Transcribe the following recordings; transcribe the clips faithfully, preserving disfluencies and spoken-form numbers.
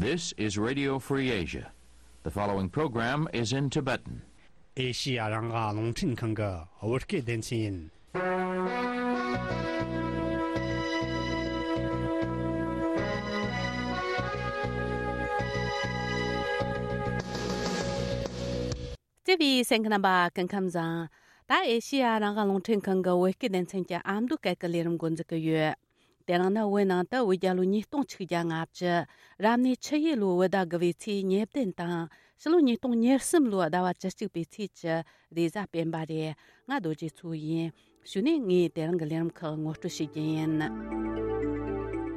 This is Radio Free Asia. The following program is in Tibetan. ཨེ་ཤི་ཡ་རང་དབང་རླུང་འཕྲིན་ཁང་གི་བོད་སྐད་སྡེ་ཚན་ཡིན། བརྩེ་བའི་གསན་མཁན་རྣམ་པ་སྐུ་ཁམས་བཟང་། ད་ཨེ་ཤི་ཡ་རང་དབང་རླུང་འཕྲིན་ཁང་གི་བོད་སྐད་སྡེ་ཚན་གྱི་ཨ་མདོ་སྐད་ཀྱི་ལས་རིམ་འགོ་འཛུགས་ཀྱི་ཡོད། དེ་རིང་ནི་བོད་ནང་དུ་བོད་རྒྱལ་ལོ་ཉིས་སྟོང་ཆིག་བརྒྱ་ལྔ་བཅུ། རབ་གནས་ཆུ་ཡོས་ལོའི་བོད་ཟླ་དགུ་བའི་ཚེས་ཉེར་བདུན་དང་། ཕྱི་ལོ་ཉིས་སྟོང་ཉེར་གསུམ་ལོའི་ཟླ་བ་བཅུ་གཅིག་པའི་ཚེས་ཀྱི་རེས་གཟའ་སྤེན་པ་རེད། ང་རྡོ་རྗེ་མཚོ་ཡིན། གཞུག་ནས་ངས་དེ་རིང་གི་ལས་རིམ་ཁག་ངོ་སྤྲོད་ཞུ་རྒྱུ་ཡིན།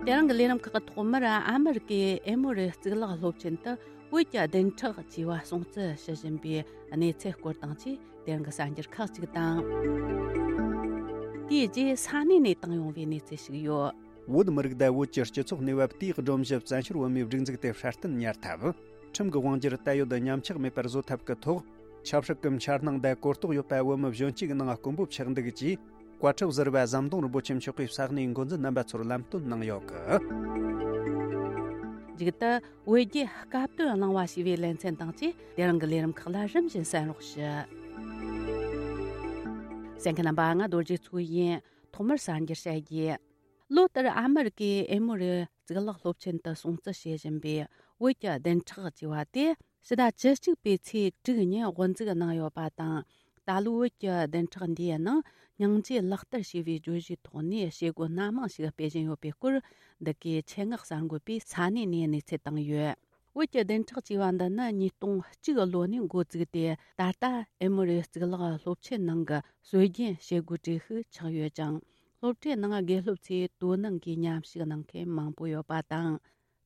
དེ་རིང་གི་ལས་རིམ་ཁག་གི་ཐོག་མར་ཨ་མི་རི་ཀའི་ཨེ་མོ་རི་གཙུག་ལག་སློབ་ཆེན་དུ་བོད་ཀྱི་བདུན་ཕྲག་ཅེས་པ་སྲུང་བརྩི་ཞུ་བཞིན་པའི་གནས་ཚུལ་སྐོར་དང་བཅས་དེ་རིང་གི་གསར་འགྱུར་ཁག་ཅིག་དང་། དེའི་རྗེས་ས་གནས་ནས་བཏང་ཡོང་བའི་གནས་ཚུལ་ཞིག་ཡོད། བོད་མི་རིགས་དང་བོད་ཀྱི་སྤྱི་ཚོགས་གནས་བབ་དེའི་སྒྲོམ་གཞི་བཙན་བྱོལ་བོད་མིའི་སྒྲིག་འཛུགས་དེ་སྲ་བརྟན་གཉེར་ཐབས། ཁྲིམས་ཀྱི་དབང་སྒྱུར་ད་ཡོད་ཉམས་ཆག་མེད་པར་བཟོ་ཐབས་ཀྱི་ཐོག་ཆབ་སྲིད་ཀྱི་འཆར་སྣང་དང་གོ་རྟོགས་ཡོད་པ་བོད་མི་གཞོན་སྐྱེས་ཀྱི་ནང་དཀོན་པོ་ཆགས་འདུག་ཅེས་བཀའ་ཁྲི་ཟུར་པ་ཟམ་གདོང་རིན་པོ་ཆེ་མཆོག་གིས་ས་གནས་འགོ་འཛིན་རྣམ་པ་ཚོར་ལམ་སྟོན་གནང་ཡོད་གི། མཇུག་ཏུ་བོད་རྒྱའི་སྐབས་དོན་གླེང་བ་ཞེས་པའི་ལེ་ཚན་དང་བཅས་དེ་རིང་གི་ལས་རིམ་ཁག་ལ་རིམ་བཞིན་གསན་རོགས་ཞུ། གསན་མཁན་རྣམ་པ། ང་རྡོ་རྗེ་མཚོ་ཡིན། ཐོག་མར་གསར་འགྱུར་བཤད་རྒྱུ། ལོ་ལྟར་ཨ་མི་རི་ཀའི་ཨེ་མོ་རི་གཙུག་ལག་སློབ་ཆེན་དུ་སྲུང་བརྩི་བྱེད་བཞིན་པའི་བོད་ཀྱི་བདུན་ཕྲག་ཅེས་པ་དེ་ཕྱི་ཟླ་བཅུ་གཅིག་པའི་ཚེས་དྲུག་ཉིན་དབུ་འཛུགས་གནང་ཡོད་པ་དང་། ད་ལོའི་བོད་ཀྱི་བདུན་ཕྲག་འདིའི་ནང་སྙིང་རྗེ་ལག་བསྟར་ཞེས་པའི་བརྗོད་གཞིའི་ཐོག་ནས་བྱེད་སྒོ་སྣ་མང་ཞིག་སྤེལ་བཞིན་ཡོད་པའི་སྐོར་འདི་གའི་ཆེད་མངགས་གསར་འགོད་པས་ས་གནས་ནས་གནས་ཚུལ་བཏང་ཡོད། བོད་ཀྱི་བདུན་ཕྲག་ཅེས་པ་འདི་ནི་ཉིས་སྟོང་གཅིག་ལོ་ནས་འགོ་བཙུགས་ཏེ། ད་ལྟ་ཨེ་མོ་རི་གཙུག་ལག་སློབ་ཆེན་ནང་གི་སྲོལ་རྒྱུན་བྱེད་སྒོའི་གྲས་ཤིག་ཆགས་ཡོད་ཅིང་། སློབ་གྲྭའི་ནང་དགེ་སློབ་ཚོས་དོ་སྣང་གིས་མཉམ་ཞུགས་གནང་མཁན་མང་པོ་ཡོད་པ་དང་།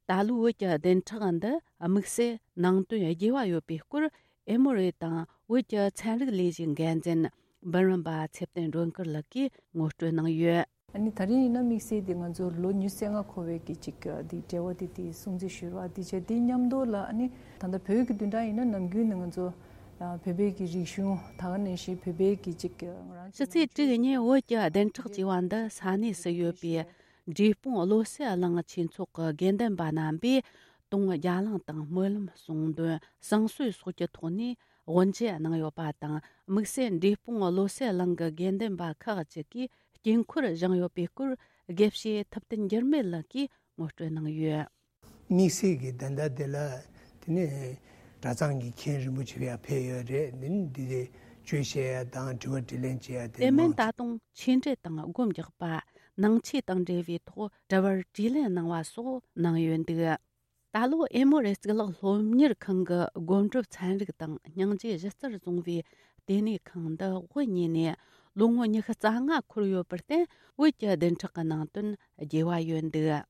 ད་ལོའི་བོད་ཀྱི་བདུན་ཕྲག་འདི་དམིགས་བསལ་ནང་དོན་རྒྱས་པ་ཡོད་པའི་སྐོར། ཨེ་མོ་རི་དང་བོད་ཀྱི་ཚན་རིག་ལས་གཞིའི་འགན་འཛིན་འབུམ་རམས་པ་ཚེ་བརྟན་སྒྲོལ་དཀར་ལགས་ཀྱིས་ངོ་སྤྲོད་གནང་ཡོད། ཨ་ནི་ད་རིང་ཡིན་ན་དམིགས་བསལ་དེ་ང་ཚོ་ལོ་ཉི་ཤུ་རྩ་ལྔ་འཁོར་བའི་གི་ཅིག་དེ་འབྲེལ་བ་དེ་དེ་སྲུང་བརྩི་ཞུ་བ་དེ་བྱས། དེ་མཉམ་དུ་ལ་ཨ་ནི་ད་ལྟ་བོད་ཀྱི་བདུན་ཕྲག་ཡིན་ན་ནམ་རྒྱུན་ནས་ང་ཚོ་ཨ་བོད་པའི་གི་རིག་གཞུང་། ད་ག་ནང་བཞིན་བོད་པའི་གི་ཅིག་ང་རང་ཕྱི་ཚེས་དྲུག་ཉིན་བོད་ཀྱི་བདུན་ཕྲག་ཅེས་པ་འདི་ས་གནས་སུ་ཡོད་པའི་འབྲས་སྤུངས་བློ་གསལ་གླིང་ཆོས་ཚོགས་ཀྱི་དགེ་འདུན་པ་རྣམ་པས་དུང་རྒྱ་གླིང་དང་སྨོན་ལམ་གསུང་འདོན་བསང་གསོལ་སོགས་ཀྱི་ཐོག་ནས་དབུ་འབྱེད་གནང་ཡོད་པ་དང་། དམིགས་བསལ་འབྲས་སྤུངས་བློ་གསལ་གླིང་གི་དགེ་འདུན་པ་ཁག་ཅིག་གིས་དཀྱིལ་འཁོར་བཞེངས་ཡོད་པའི་སྐོར། དགེ་བཤེས་ཐུབ་བསྟན་འགྱུར་མེད་ལགས་ཀྱིས་ངོ་སྤྲོད་གནང་ཡོད། དམིགས་བསལ་གྱི་ད་ལྟ་དེ་ལ་དེ་ནས་གྲྭ་ཚང་གི་མཁན་རིན་པོ་ཆེ་ཡར་ཕེབས་ཡོད་རེད། དེ་ནས་འདི་དེ་བརྗོད་བཤད་ཡ་དང་དྲི་བ་དྲིས་ལན་བྱེད་ཡ་དེ། དེ་མིན་མང་ད་དུང་ཆོས་འབྲེལ་དང་སྒོམ་རྒྱག་པ། ནང་ཆོས་དང་འབྲེལ་བའི་ཐོག་དྲི་བར་དྲིས་ལན་གནང་བ་སོགས་གནང་ཡོད་འདུག། ད་ལོ་ཨེ་མོ་རི་གཙུག་ལག་སློབ་གཉེར་ཁང་གི་སྒོམ་སྒྲུབ་ཚན་རིག་དང་སྙིང་རྗེ་གཞི་རྩར་བཟུང་བའི་ལྟེ་གནས་ཁང་འདི་དབུ་བརྙེས་ནས་ལོ་ངོ་ཉི་ཤུ་རྩ་ལྔ་འཁོར་ཡོད་པར་བརྟེན། བོད་ཀྱི་བདུན་ཕྲག་གི་ནང་དོན་རྒྱས་པ་ཡོད་འདུག།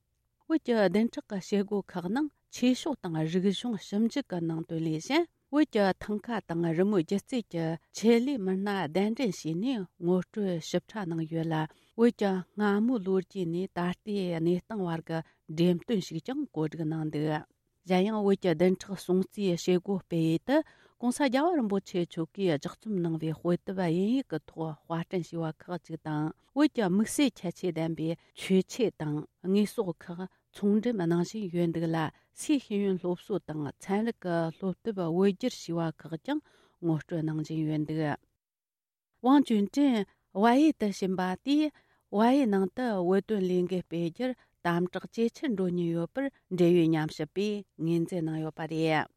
བོད་ཀྱི་བདུན་ཕྲག་གི་བྱེད་སྒོ་ཁག་ནང་ཆོས་ཕྱོགས་དང་རིག་གཞུང་ཞིབ་འཇུག་གི་ནང་དོན་ལས་གཞན། བོད་ཀྱི་ཐང་ག་དང་རི་མོའི་སྒྱུ་རྩལ་གྱི་ཆེད་ལས་མི་སྣ་གདན་འདྲེན་བྱས་ནས་ངོ་སྤྲོད་ཞིབ་ཕྲ་གནང་ཡོད་ལ། བོད་ཀྱི་སྔ་མོའི་ལོ་རྒྱུས་ནས་ད་ལྟའི་གནས་སྟངས་བར་གྱི་འགྲེམས་སྟོན་ཞིག་ཀྱང་གོ་སྒྲིག་གནང་འདུག། གཞན་ཡང་བོད་ཀྱི་བདུན་ཕྲག་སྲུང་བརྩིའི་བྱེད་སྒོ་སྤེལ་ཡུལ་དུ་༸གོང་ས་༸རྒྱལ་བ་རིན་པོ་ཆེ་མཆོག་གིས་ལྗགས་རྩོམ་གནང་བའི་དཔེ་དེབ་དབྱིན་ཡིག་གི་ཐོག་དཔར་སྐྲུན་བྱས་པ་ཁག་ཅིག་དང་། བོད་ཀྱི་དམིགས་བསལ་ཁྱད་ཆོས་ལྡན་པའི་མཆོད་ཆས་དང་དངོས་ཟོག་ཁག་ཚོང་འགྲེམས་གནང་བཞིན་ཡོད་འདུག་ལ། སའི་ཤེས་ཡོན་སློབ་གསོ་དང་ཚན་རིག་གི་སློབ་དེབ་བོད་བསྒྱུར་བྱས་པ་ཁག་ཀྱང་ངོ་སྤྲོད་གནང་བཞིན་ཡོད་འདུག། ཝང་ཅུན་ཀྲེང་ཝ་ཡེ་དུ་ཕྱིན་པ་དེས་ཝ་ཡེ་ནང་དུ་བོད་དོན་ལས་འགུལ་སྤེལ་རྒྱུར་དམ་དྲག་ཇེ་ཆེར་འགྲོ་ཉེན་ཡོད་པར་འབྲེལ་ཡོད་ཉམས་ཞིབ་པས་ངོས་འཛིན་གནང་ཡོད་པ་རེད།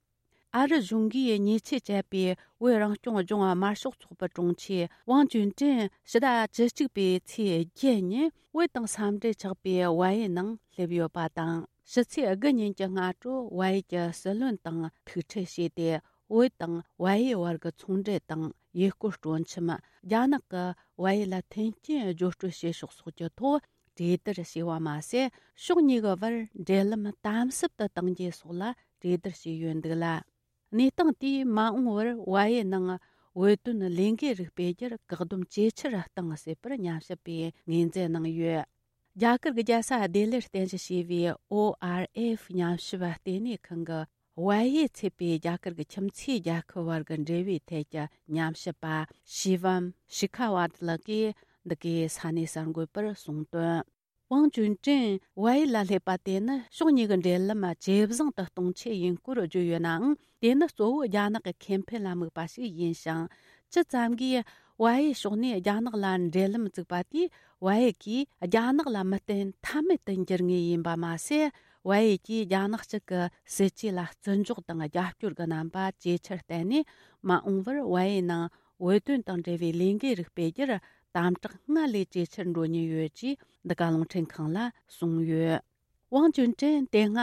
ཨ་རི་གཞུང་གིས་ཉེས་ཆད་བཅད་པའི་བོད་རང་སྐྱོང་ལྗོངས་དམར་ཤོག་ཚོགས་པའི་དྲུང་ཆེ་ཝང་ཅུན་ཀྲེང་ཕྱི་ཟླ་བཅུ་གཅིག་པའི་ཚེས་བརྒྱད་ཉིན་བོད་དང་ས་འབྲེལ་ཆགས་པའི་ཝ་ཡེ་ནང་སླེབས་ཡོད་པ་དང་། ཕྱི་ཚེས་དགུ་ཉིན་གྱི་སྔ་དྲོ་ཝ་ཡེ་གྱི་སྲིད་བློན་དང་ཐུག་འཕྲད་བྱས་ཏེ། བོད་དང་ཝ་ཡེ་བར་གྱི་ཚོང་འབྲེལ་དང་ཡུལ་སྐོར་སྤྲོ་འཆམ། རྒྱ་ནག་གིས་ཝ་ཡེ་ལ་མཐུན་རྐྱེན་སྦྱོར་སྤྲོད་བྱེད་ཕྱོགས་སོགས་ཀྱི་ཐོག་གྲོས་བསྡུར་བྱས་པ་མ་ཟད། ཕྱོགས་གཉིས་ཀྱི་བར་འབྲེལ་ལམ་དམ་ཟབ་ཏུ་གཏང་རྒྱུ་སོགས་ལ་གྲོས་བསྡུར་བྱས་ཡོད་འདུག་ལ། གནས་སྟངས་དེས་མ་འོངས་པར་ཝ་ཡེ་ནང་བོད་དོན་ལས་འགུལ་རིགས་སྤེལ་རྒྱུར་བཀག་སྡོམ་ཇེ་ཆེར་གཏང་སྲིད་པར་ཉམས་ཞིབ་པས་ངོས་འཛིན་གནང་ཡོད། རྒྱ་གར་གྱི་རྒྱལ་ས་ལྡི་ལིར་རྟེན་གཞི་བྱས་པའི་ཨོ་ཨར་ཨེཕ་ཉམས་ཞིབ་ལྟེ་གནས་ཁང་གི་ཝ་ཡེ་ཚུད་པའི་རྒྱ་གར་གྱི་ཁྱིམ་མཚེས་རྒྱལ་ཁབ་བར་གྱི་འབྲེལ་བའི་ཐད་ཀྱི་ཉམས་ཞིབ་པ་ཤི་ཝམ་ཤི་ཁ་ཝར་ལགས་ཀྱིས་འདི་གའི་ས་གནས་གསར་འགོད་པར་གསུངས་དོན། ཝང་ཅུན་ཀྲེང་ཝའེ་ལ་སླེབས་པ་དེ་ནི་ཕྱོགས་གཉིས་ཀྱི་འབྲེལ་ལམ་ཇེ་བཟང་དུ་གཏོང་ཆེད་ཡིན་སྐོར་བརྗོད་ཡོད་ནའང་། དེ་ནི་གཙོ་བོ་རྒྱ་ནག་གི་ཁེ་ཕན་ལ་དམིགས་པ་ཞིག་ཡིན་ཞིང་། ཇི་ཙམ་གྱིས་ཝའེ་ཕྱོགས་ནས་རྒྱ་ནག་ལ་འབྲེལ་ལམ་བཙུགས་པ་དེས། ཝའེ་གིས་རྒྱ་ནག་ལ་མི་བརྟེན་ཐབས་མེད་དུ་འགྱུར་ངེས་ཡིན་པ་མ་ཟད། ཝའེ་གིས་རྒྱ་ནག་གཅིག་གི་སྲིད་ཇུས་ལ་བརྩི་འཇོག་དང་རྒྱབ་སྐྱོར་གྱི་རྣམ་པ་ཇེ་ཆེར་བརྟན་ནས། མ་འོངས་པར་ཝའེ་ནང་བོད་དོན་དང་འབྲེལ་བའི་ལས་འགུལ་རིགས་སྤེལ་རྒྱུར་དམ་དྲག་སྔར་ལས་ཇེ་ཆེར་འགྲོ་ཉེན་ཡོད་ཅེས་འདི་ག་རླུང་འཕྲིན་ཁང་ལ་གསུངས་ཡོད། ཝང་ཅུན་ཀྲེང་དེ་སྔ་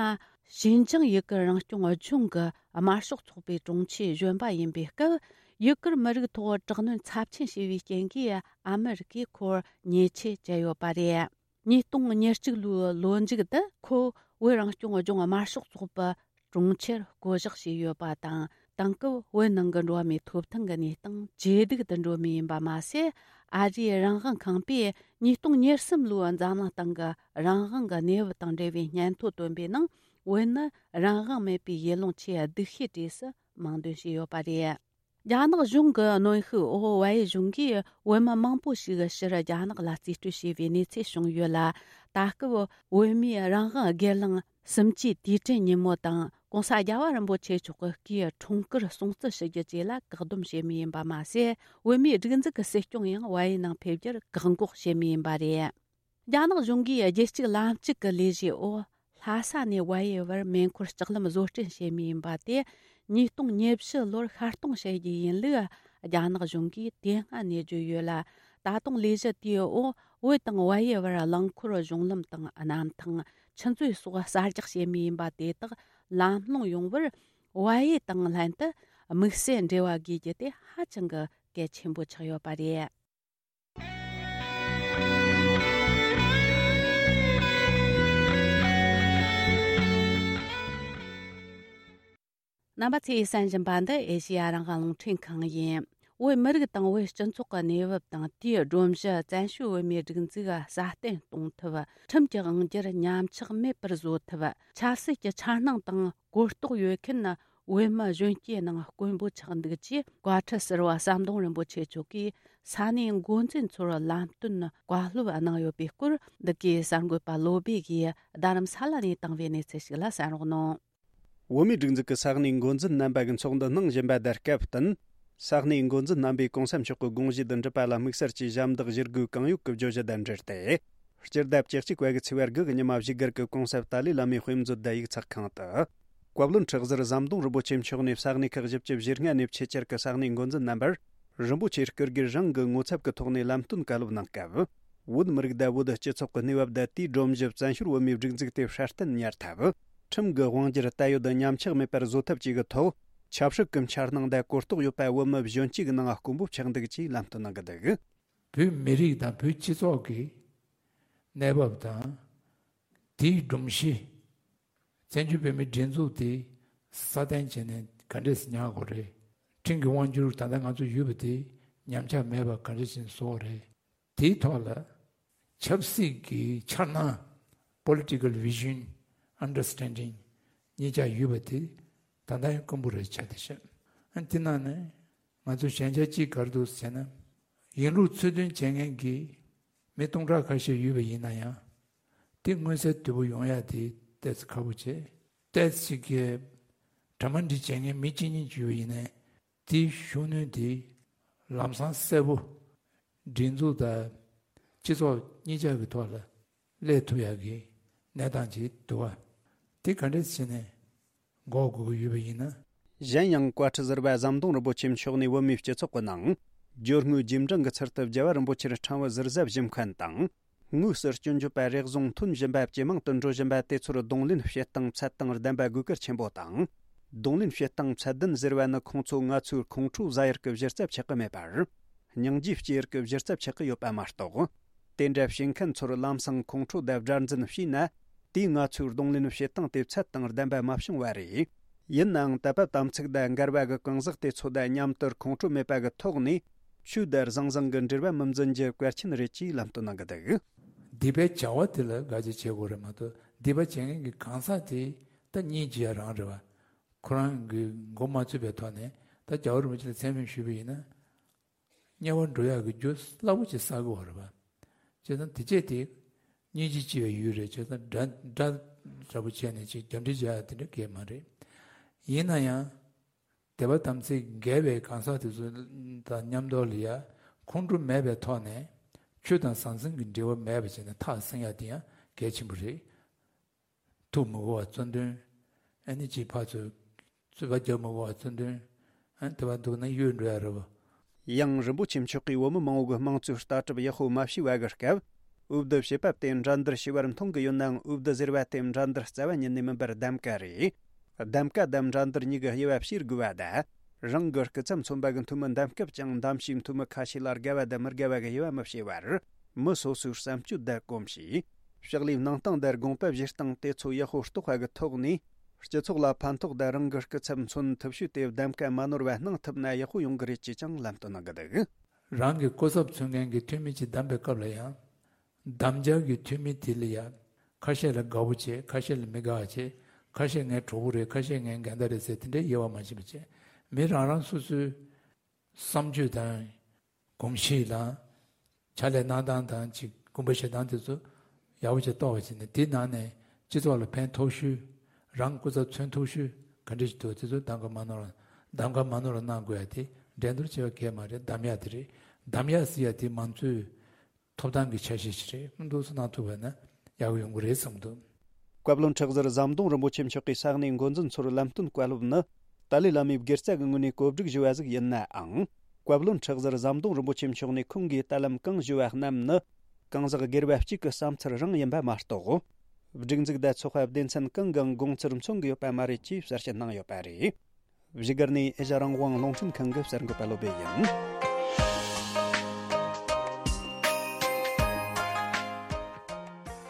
ཞིན་ཅང་ཡུ་གུར་རང་སྐྱོང་ལྗོངས་ཀྱི་དམར་ཤོག་ཚོགས་པའི་དྲུང་ཆེ་གཞོན་པ་ཡིན་པའི་སྐབས། ཡུ་གུར་མི་རིགས་ཐོག་དྲག་གནོན་ཚབས་ཆེན་བྱས་པའི་རྐྱེན་གྱིས། ཨ་མི་རི་ཀས་ཁོར་ཉེས་ཆད་བཅད་ཡོད་པ་རེད། ཉིས་སྟོང་ཉེར་གཅིག་ལོའི་ལོ་མཇུག་ཏུ་ཁོ་བོད་རང་སྐྱོང་ལྗོངས་དམར་ཤོག་ཚོགས་པའི་དྲུང་ཆེར་བསྐོ་གཞག་བྱས་ཡོད་པ་དང་། དེང་སྐབས་བོད་ནང་གི་འགྲོ་བ་མིའི་ཐོབ་ཐང་གི་གནས་སྟངས་ཇེ་སྡུག་ཏུ་འགྲོ་མུས་ཡིན་པ་མ་ཟད། ཨ་རིའི་རང་དབང་ཁང་པས་ཉིས་སྟོང་ཉེར་གསུམ་ལོའི་འཛམ་གླིང་སྟེང་གི་རང་དབང་གི་གནས་བབ་དང་འབྲེལ་བའི་སྙན་ཐོ་བཏོན་པའི་ནང་། བོད་ནི་རང་དབང་མེད་པའི་ཡུལ་ལུང་ཆེས་སྡུག་ཤོས་གྲས་སུ་མིང་འདོན་བྱས་ཡོད་པ་རེད། རྒྱ་ནག་གཞུང་གི་གནོན་ཤུགས་འོག་ཝའེ་གཞུང་གིས་བོད་མི་མང་པོ་ཞིག་ཕྱིར་རྒྱ་ནག་ལ་རྩིས་སྤྲོད་བྱས་པའི་གནས་ཚུལ་བྱུང་ཡོད་ལ། ད་སྐབས་བོད་མིའི་རང་དབང་སྒེར་ལངས་གསུམ་བཅུའི་དུས་དྲན་ཉིན་མོ་དང་༸གོང་ས་རྒྱལ་བ་རིན་པོ་ཆེ་མཆོག་གི་སྐུའི་འཁྲུངས་སྐར་སྲུང་བརྩི་ཞུ་རྒྱུ་བཅས་ལ་བཀག་སྡོམ་བྱེད་མུས་ཡིན་པ་མ་ཟད། བོད་མིའི་སྒྲིག་འཛུགས་ཀྱི་སྲིད་སྐྱོང་ཡང་ཝའེ་ནང་ཕེབས་རྒྱུར་བཀག་འགོག་བྱེད་མུས་ཡིན་པ་རེད། རྒྱ་ནག་གཞུང་གིས་རྒྱལ་གཅེས་ལམ་གཅིག་གི་ལས་གཞིའི་འོག་ལྷ་ས་ནས་ཝའེ་བར་མེ་འཁོར་ལྕགས་ལམ་བཟོ་སྐྲུན་བྱེད་མུས་ཡིན་པ་དེ། ཉིས་སྟོང་ཉེར་བཞི་ལོར་ཤར་གཏོང་བྱེད་རྒྱུ་ཡིན་ལུགས་རྒྱ་ནག་གཞུང་གིས་དེ་སྔ་ནས་བརྗོད་ཡོད་ལ། ད་དུང་ལས་གཞི་དེའི་འོག་བོད་དང་ཝའེ་བར་རླངས་འཁོར་གཞུང་ལམ་དང་གནམ་ཐང་། ཆུ་མཛོད་སོགས་གསར་རྒྱག་བྱེད་མུས་ཡིན་པ་དེ་དག་ལམ་ལྷོང་ཡོང་བར་ཝའེ་དང་ལྷན་དུ་དམིགས་བསལ་འབྲེལ་བ་དགོས་རྒྱུ་དེ་ཧ་ཅང་གི་གལ་ཆེན་པོ་ཆགས་ཡོད་པ་རེད། རྣམ་པ་ཚོས་གསན་བཞིན་པ་འདི་ཨེ་ཤེ་ཡ་རང་དབང་རླུང་འཕྲིན་ཁང་ཡིན། བོད་མི་རིགས་དང་བོད་སྤྱི་ཚོགས་ཀྱི་གནས་བབ་དང་། དེའི་སྒྲོམ་གཞི་བཙན་བྱོལ་བོད་མིའི་སྒྲིག་འཛུགས་སྲ་བརྟན་གཏོང་ཐབས། ཁྲིམས་ཀྱི་དབང་སྒྱུར་ཉམས་ཆག་མེད་པར་བཟོ་ཐབས། ཆབ་སྲིད་ཀྱི་འཆར་སྣང་དང་གོ་རྟོགས་ཡོད་མཁན་བོད་མི་གཞོན་སྐྱེས་ནང་དཀོན་པོ་ཆགས་འདུག་ཅེས་བཀའ་ཁྲི་ཟུར་པ་ཟམ་གདོང་རིན་པོ་ཆེ་མཆོག་གིས་ས་གནས་འགོ་འཛིན་ཚོར་ལམ་སྟོན་བཀའ་སློབ་གནང་ཡོད་པའི་སྐོར། འདི་གའི་གསར་འགོད་པ་བློ་བྷེ་ཡིས་རྡ་རམ་ས་ལ་ནས་བཏང་བའི་གནས་ཚུལ་ཞིག་ལ་གསན་རོགས་གནང་། བོད་མིའི་སྒྲིག་འཛུགས་ཀྱི་ས་གནས་འགོ་འཛིན་རྣམ་པ་གི་ཚོགས་འདུ་གནང་བཞིན་པ་དེར་སྐབས་བསྟུན། ས་གནས་འགོ་འཛིན་རྣམ་པས་གོང་ས་མཆོག་གི་དགོངས་གཞི་དང་འགྲུབ་པ་ལ་དམིགས་བསལ་གྱི་ཞབས་འདེགས་ཞུ་དགོས་གང་ཡོད་ཀྱི་བརྗོད་གཞི་དང་འབྲེལ་ཏེ། སྤྱི་ཟླ་བཅུ་གཅིག་པ་གི་ཚེས་པ་དགུ་གི་ཉི་མ་བཞུགས་སྒར་གྱི་གོང་ས་ཏཱ་ལའི་བླ་མའི་དཔེ་མཛོད་དང་ཡིག་ཚགས་ཁང་དུ། བཀའ་བློན་ཁྲི་ཟུར་ཟམ་གདོང་རིན་པོ་ཆེ་མཆོག་ནས་ས་གནས་ཁག་བཞི་བཅུ་ཞེ་ལྔ་ནས་ཆེད་བཅར་གྱི་ས་གནས་འགོ་འཛིན་རྣམ་པར། རིན་པོ་ཆེའི་སྐུ་སྒེར་རང་གི་ངོ་ཚབ་ཀྱི་ཐོག་ནས་ལམ་སྟོན་བཀའ་སློབ་གནང་སྐབས། བོད་མི་རིགས་དང་བོད་སྤྱི་ཚོགས་ཀྱི་གནས་བབ་དང་། དེའི་སྒྲོམ་གཞི་བཙན་བྱོལ་བོད་མིའི་སྒྲིག་འཛུགས་དེ་སྲ་བརྟན་གཉེར་ཐབས། ཁྲིམས་ཀྱི་དབང་སྒྱུར་དར་ཡོད་དང་ཉམས་ཆག་མེད་པར་བཟོ་ཐབས་བཅས་ཀྱི་ཐོག་ཆབ་སྲིད་ཀྱི་འཆར་སྣང་དང་གོ་རྟོགས་ཡོད་པ་བོད་མི་གཞོན་སྐྱེས་ཀྱི་ནང་དཀོན་པོ་ཆགས་འདུག་ཅེས་ལམ་སྟོན་གནང་གི་འདུག། བོད་མི་རིགས་དང་བོད་སྤྱི་ཚོགས་ཀྱི་གནས་བབ་དང་། དེའི་སྒྲོམ་གཞི། བཙན་བྱོལ་བོད་མིའི་སྒྲིག་འཛུགས་དེ་སྲ་བརྟན་བྱས་ནས་ག་འདྲས་ཉར་དགོས་རེད། ཁྲིམས་ཀྱི་དབང་སྒྱུར་ད་ལྟ་ང་ཚོ་ཡོད་པ་དེ་ཉམས་ཆག་མེད་པ་ག་འདྲས་བྱས་ནས་བཟོ་དགོས་རེད། དེའི་ཐོག་ལ་ཆབ་སྲིད་ཀྱི་འཆར་སྣང་། Political Vision Understanding གཉིས་ཆ་ཡོད་པ་དེ་ད་ལྟ་ཡང་དཀོན་པོ་རེད་ཆགས་བསྡད་ཤག། ཨ་དེ་ནང་ནས་ང་ཚོ་ཞན་ཆ་གཅིག་ག་རེ་འདུག་ཟེར་ན། ཡིན་ལུགས་ཚུལ་མཐུན་བྱེད་མཁན་གྱི་མི་སྟོང་ཕྲག་ཁ་ཤས་ཡོད་པ་ཡིན་ན་ཡང་། དེ་མངོན་གསལ་དོད་པོ་ཡོང་ཡ་དེ་ཏོག་ཙམ་ཁག་པོ་བྱས། ཏོག་ཙམ་གྱི་གྲ་མ་འགྲིག་བྱེད་མཁན་མི་གཅིག་གཉིས་ཅིག་ཡོད་པ་ཡིན་ན། དེའི་ཤུགས་སྣོན་དེ་ལམ་སང་གསལ་པོ་སྒྲིག་འཛུགས་དང་སྤྱི་ཚོགས་གཉིས་ཆ་གི་ཐོག་ལ་སླེབས་ཐུབ་ཡག་གི་གནས་སྟངས་ཅིག་འདུག་བ། དེ་ག་འདྲས་བྱས་ནས་འགོག་དགོས་ཀྱི་ཡོད་པ་ཡིན་ན། གཞན་ཡང་བཀའ་ཁྲི་ཟུར་པ་ཟམ་གདོང་རིན་པོ་ཆེ་མཆོག་ནས་བོད་མིའི་སྤྱི་ཚོགས་ཀྱི་ནང་སྦྱོར་དངོས་རྗེས་འབྲང་གི་ཚུལ་དུ་རྒྱལ་བ་རིན་པོ་ཆེར་ཕྲེང་བ་ཟུར་ཟ་བཞེས་མཁན་དང་། དངོས་སུ་སྐྱོན་བརྗོད་པ་རེ་ཟུང་ཐོན་བཞིན་པ་ཇེ་མང་དུ་འགྲོ་བཞིན་པ་དེ་ཚོར་གདོང་ལེན་བྱེད་སྟངས་ཚད་དང་ལྡན་པ་དགོས་གལ་ཆེན་པོ་དང་། གདོང་ལེན་བྱེད་སྟངས་ཚད་ལྡན་ཟེར་བ་ནི་ཁོང་ཚོ་ང་ཚོའི་ཁོང་ཁྲོ་ཟ་ཡུལ་གྱི་གཞི་རྩ་ཆགས་ཀྱི་མེད་པར། སྙིང་རྗེ་སྐྱེ་ཡུལ་གྱི་གཞི་རྩ་ཆགས་ཀྱི་ཡོད་པ་མ་གཏོགས། དེ་འདྲ་བྱེད་མཁན་ཚོར་ལམ་སང་ཁོང་ཁྲོ་དང་དགྲར་འཛིན་བྱས་ན། དེས་ང་ཚོའི་གདོང་ལེན་བྱེད་སྟངས་དེ་ཚད་དང་ལྡན་པ་མ་བྱུང་བ་རེད། ཡིན་ནའང་དད་པ་དམ་ཚིག་དང་འགལ་བ་གི་གང་ཟག་དེ་ཚོ་དང་མཉམ་དུ་ཁོང་ཁྲོ་མེད་པ་གི་ཐོག་ནས་ཆོས་དང་ཟང་ཟིང་གི་འབྲེལ་བ་མི་འཛིན་རྒྱུ་གལ་ཆེན་རེད་ཅེས་ལམ་སྟོན་གནང་གི་འདུག། སྡིག་པའི་བྱ་བ་དེ་ལ་དགག་བྱ་བྱེད་དགོས་རེད་མ་གཏོགས། སྡིག་པ་བྱེད་མཁན་གྱི་གང་ཟག་དེ་ད་སྙིང་རྗེ་ཡ་རང་རེད་བ། ཁོ་རང་གི་མགོ་མ་ཚོས་པའི་ཐོག་ནས་ད་རྒྱལ་བ་རིན་པོ་ཆེ་ལ་མཚན་སྨད་ཞུས་པ་ཡིན་ན། དམྱལ་བར་འགྲོ་ཡག་གི་རྒྱུ་སླ་པོ་ཅིག་བསགས་ཀྱི་ཡོད་རེད་པ། བྱས་ཙང་དེ་བྱས་དེ། སྙིང་རྗེ་ཆེ་བའི་ཡུལ་རེད། བྱས་ཙང་དགྲ་དགྲ་འདྲ་པོ་བྱས་ནས་ཅིག་རྒྱབ་འདྲེ་རྒྱག་ཡ་དེ་འདྲ་གང་ཡང་མ་རེད། ཡིན་ན་ཡང་། དད་པ་དམ་ཚིག་འགལ་བའི་གང་ཟག་དེ་ཚོ་དང་མཉམ་དུ་ལ་ཡ་ཁོང་ཁྲོ་མེད་པའི་ཐོག་ནས་ཆོས་དང་ཟང་ཟིང་གི་འབྲེལ་བ་མེད་པ་བྱས་ནས་ཐག་བསྲིང་ཡ་དེ་ཡང་གལ་ཆེན་པོ་རེད། ཐུགས་མི་དགོས་པ་གཙོ་འདོན། ཨ་ནི་ཅིག་ཕར་ཚུར་རྩོད་པ་རྒྱག་མི་དགོས་པ་གཙོ་འདོན། ཨ་ནི་དེ་བ་འདུག་ན་གཡོལ་འགྲོ་ཡ་རེད་བ། ཡང་རིན་པོ་ཆེ་མཆོག་གིས་བོད་མི་མང་བོ་གི་དམངས་གཙོའི་ལྟ་གྲུབ་ཡག་པོ་མ་ཤེས་པ་གི་སྐབས། འོས་བསྡུ་བྱེད་པ་དེ་འགྲན་བསྡུར་ཞེས་པར་མཐོང་གི་ཡོད་ནའང་། འོས་བསྡུ་ཟེར་བ་དེ་འགྲན་བསྡུར་རྩ་བ་ཉིད་ནས་མིན་པར་གདམ་ག་རེད། གདམ་ག་དང་འགྲན་བསྡུར་གཉིས་ཀྱི་དབྱེ་བ་ཕྱེ་དགོས་པ་དང་། རང་གི་སྐུ་ཚབ་མཚོན་པ་གི་འཐུས་མི་འདེམས་སྐབས་ཀྱང་འདེམས་བྱེད་འཐུས་མི་ཁ་ཤས་ལ་དགའ་བ་དང་མི་དགའ་བ་གི་དབྱེ་བ་མི་ཕྱེ་བར། མི་སོ་སོའི་བསམ་སྤྱོད་དང་གོམས་གཤིས། ཕྱག་ལས་གནང་སྟངས་དང་དགོངས་པ་བཞེས་སྟངས་དེ་ཚོ་ཡག་པོ་རྟོགས་པ་གི་ཐོག་ནས། སྤྱི་ཚོགས་ལ་ཕན་ཐོགས་དང་རང་གི་སྐུ་ཚབ་མཚོན་ཐུབ་ཤོས་དེ་གདམ་ག་མ་ནོར་བ་གནང་ཐུབ་ན་ཡག་པོ་ཡོང་གི་རེད་ཅེས་ཀྱང་ལམ་སྟོན་གནང་གི་འདུག་རང་གི་སྐུ་ཚབ་མཚོན་མཁན་གྱི་འཐུས་མི་ཅིག་བདམས་པའི་སྐབས་ལ་ཡང་། གདམ་རྒྱག་གི་འཐུས་མི་དེ་ལ་ཡང་། ཁ་ཤས་ལ་དགའ་པོ་བྱེད། ཁ་ཤས་ལ་མི་དགའ་བ་བྱེད། ཁ་ཤས་ངའི་གྲོགས་པོ་རེད། ཁ་ཤས་ངའི་འགལ་ཟླ་རེད་ཟེར་དེ་འདྲའི་དབྱེ་བ་མ་ཕྱེ་བ་བྱེད། མི་རང་རང་སོ་སོའི་བསམ་སྤྱོད་དང་། གོམས་གཤིས་དང་། ཕྱག་ལས་གནང་སྟངས་དང་ཅིག་དགོངས་པ་བཞེས་སྟངས་དེ་ཚོ་ཡག་པོ་ཅིག་རྟོགས་པ་བྱས་ནས། དེའི་ནང་ནས་སྤྱི་ཚོགས་ལ་ཕན་ཐོགས་ཤོས། རང་སྐུ་ཚབ་མཚོན་ཐུབ་ཤོས་ག་འདྲ་ཞིག་འདུག་དེ་ཚོ་གདམ་ག་མ་ནོར། གདམ་ག་མ་ནོར་གནང་དགོས་ཡ་དེ་འགྲན་བསྡུར་བྱེད་པ་གལ་མ་རེད། གདམ་ཡ་དེ་རེད། གདམ་ཡ་ཟེར་ཡ་དེ་མང་གཙོའི་ཐོབ་ཐང་གི་ཆ་ཤས་ཤིག་རེད། འདུག་སེ་གནང་ཐུབ་པ་ན་ཡག་པོ་ཡོང་གི་རེད་བསམ་འདུག་བཀའ་བློན་ཁྲི་ཟུར་ཟམ་གདོང་རིན་པོ་ཆེ་མཆོག་གིས་ས་གནས་འགོ་འཛིན་ཚོར་ལམ་སྟོན་བཀའ་སློབ་ནི། ཏཱ་ལའི་བླ་མའི་དགེ་རྩ་གི་ངོས་ནས་གོ་སྒྲིག་ཞུས་པ་ཟིག་ཡིན་ནའང་། བཀའ་བློན་ཁྲི་ཟུར་ཟམ་གདོང་རིན་པོ་ཆེ་མཆོག་ནས་ཁོང་གིས་ད་ལམ་གང་ཞུས་པ་རྣམས་ནི། གང་ཟག་སྒེར་བ་གཅིག་གི་བསམ་ཚུལ་རང་ཡིན་པ་མ་གཏོགས། སྒྲིག་འཛུགས་དང་ཚོགས་པ་སྡེ་ཚན་གང་གང་དགོངས་ཚུལ་མཚོན་གྱི་ཡོད་པ་མ་རེད་ཅེས་གསལ་བཤད་གནང་ཡོད་པ་རེད། བཞུགས་སྒར་ནས་ཨེ་ཤ་རང་དབང་རླུང་འཕྲིན་ཁང་གི་གསར་འགོད་པ་བློ་བྷེ་ཡིན།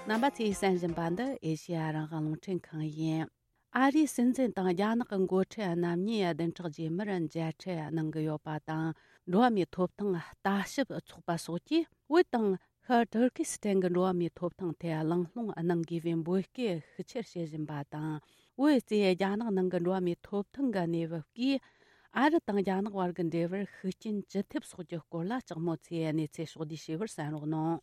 རྣམ་པ་ཚོས་གསན་བཞིན་པ་འདི་ཨེ་ཤ་ཡ་རང་དབང་རླུང་འཕྲིན་ཁང་ཡིན། ཨ་རིའི་སྲིད་འཛིན་དང་རྒྱ་ནག་གི་འགོ་ཁྲིད་རྣམ་གཉིས་བདུན་ཕྲག་རྗེས་མར་མཇལ་འཕྲད་གནང་གི་ཡོད་པ་དང་། འགྲོ་བ་མིའི་ཐོབ་ཐང་ལྟ་ཞིབ་ཚོགས་པ་སོགས་ཀྱིས་བོད་དང་ཤར་ཏུར་ཀི་སི་ཐན་གྱི་འགྲོ་བ་མིའི་ཐོབ་ཐང་ཐད་གླེང་སློང་གནང་དགོས་པའི་འབོད་སྐུལ་ཤུགས་ཆེར་བྱེད་བཞིན་པ་དང་། བོད་རྩིས་རྒྱ་ནག་ནང་གི་འགྲོ་བ་མིའི་ཐོབ་ཐང་གི་གནས་བབ་ཀྱིས། ཨ་རི་དང་རྒྱ་ནག་བར་གྱི་འབྲེལ་བར་ཤུགས་རྐྱེན་ཅི་ཐེབས་སོགས་ཀྱི་སྐོར་ལ་ལྕགས་མོ་ཚོས་གནས་ཚུལ་ཕྱོགས་བསྡུས་ཞུས་པར་གསན་རོགས་གནང་།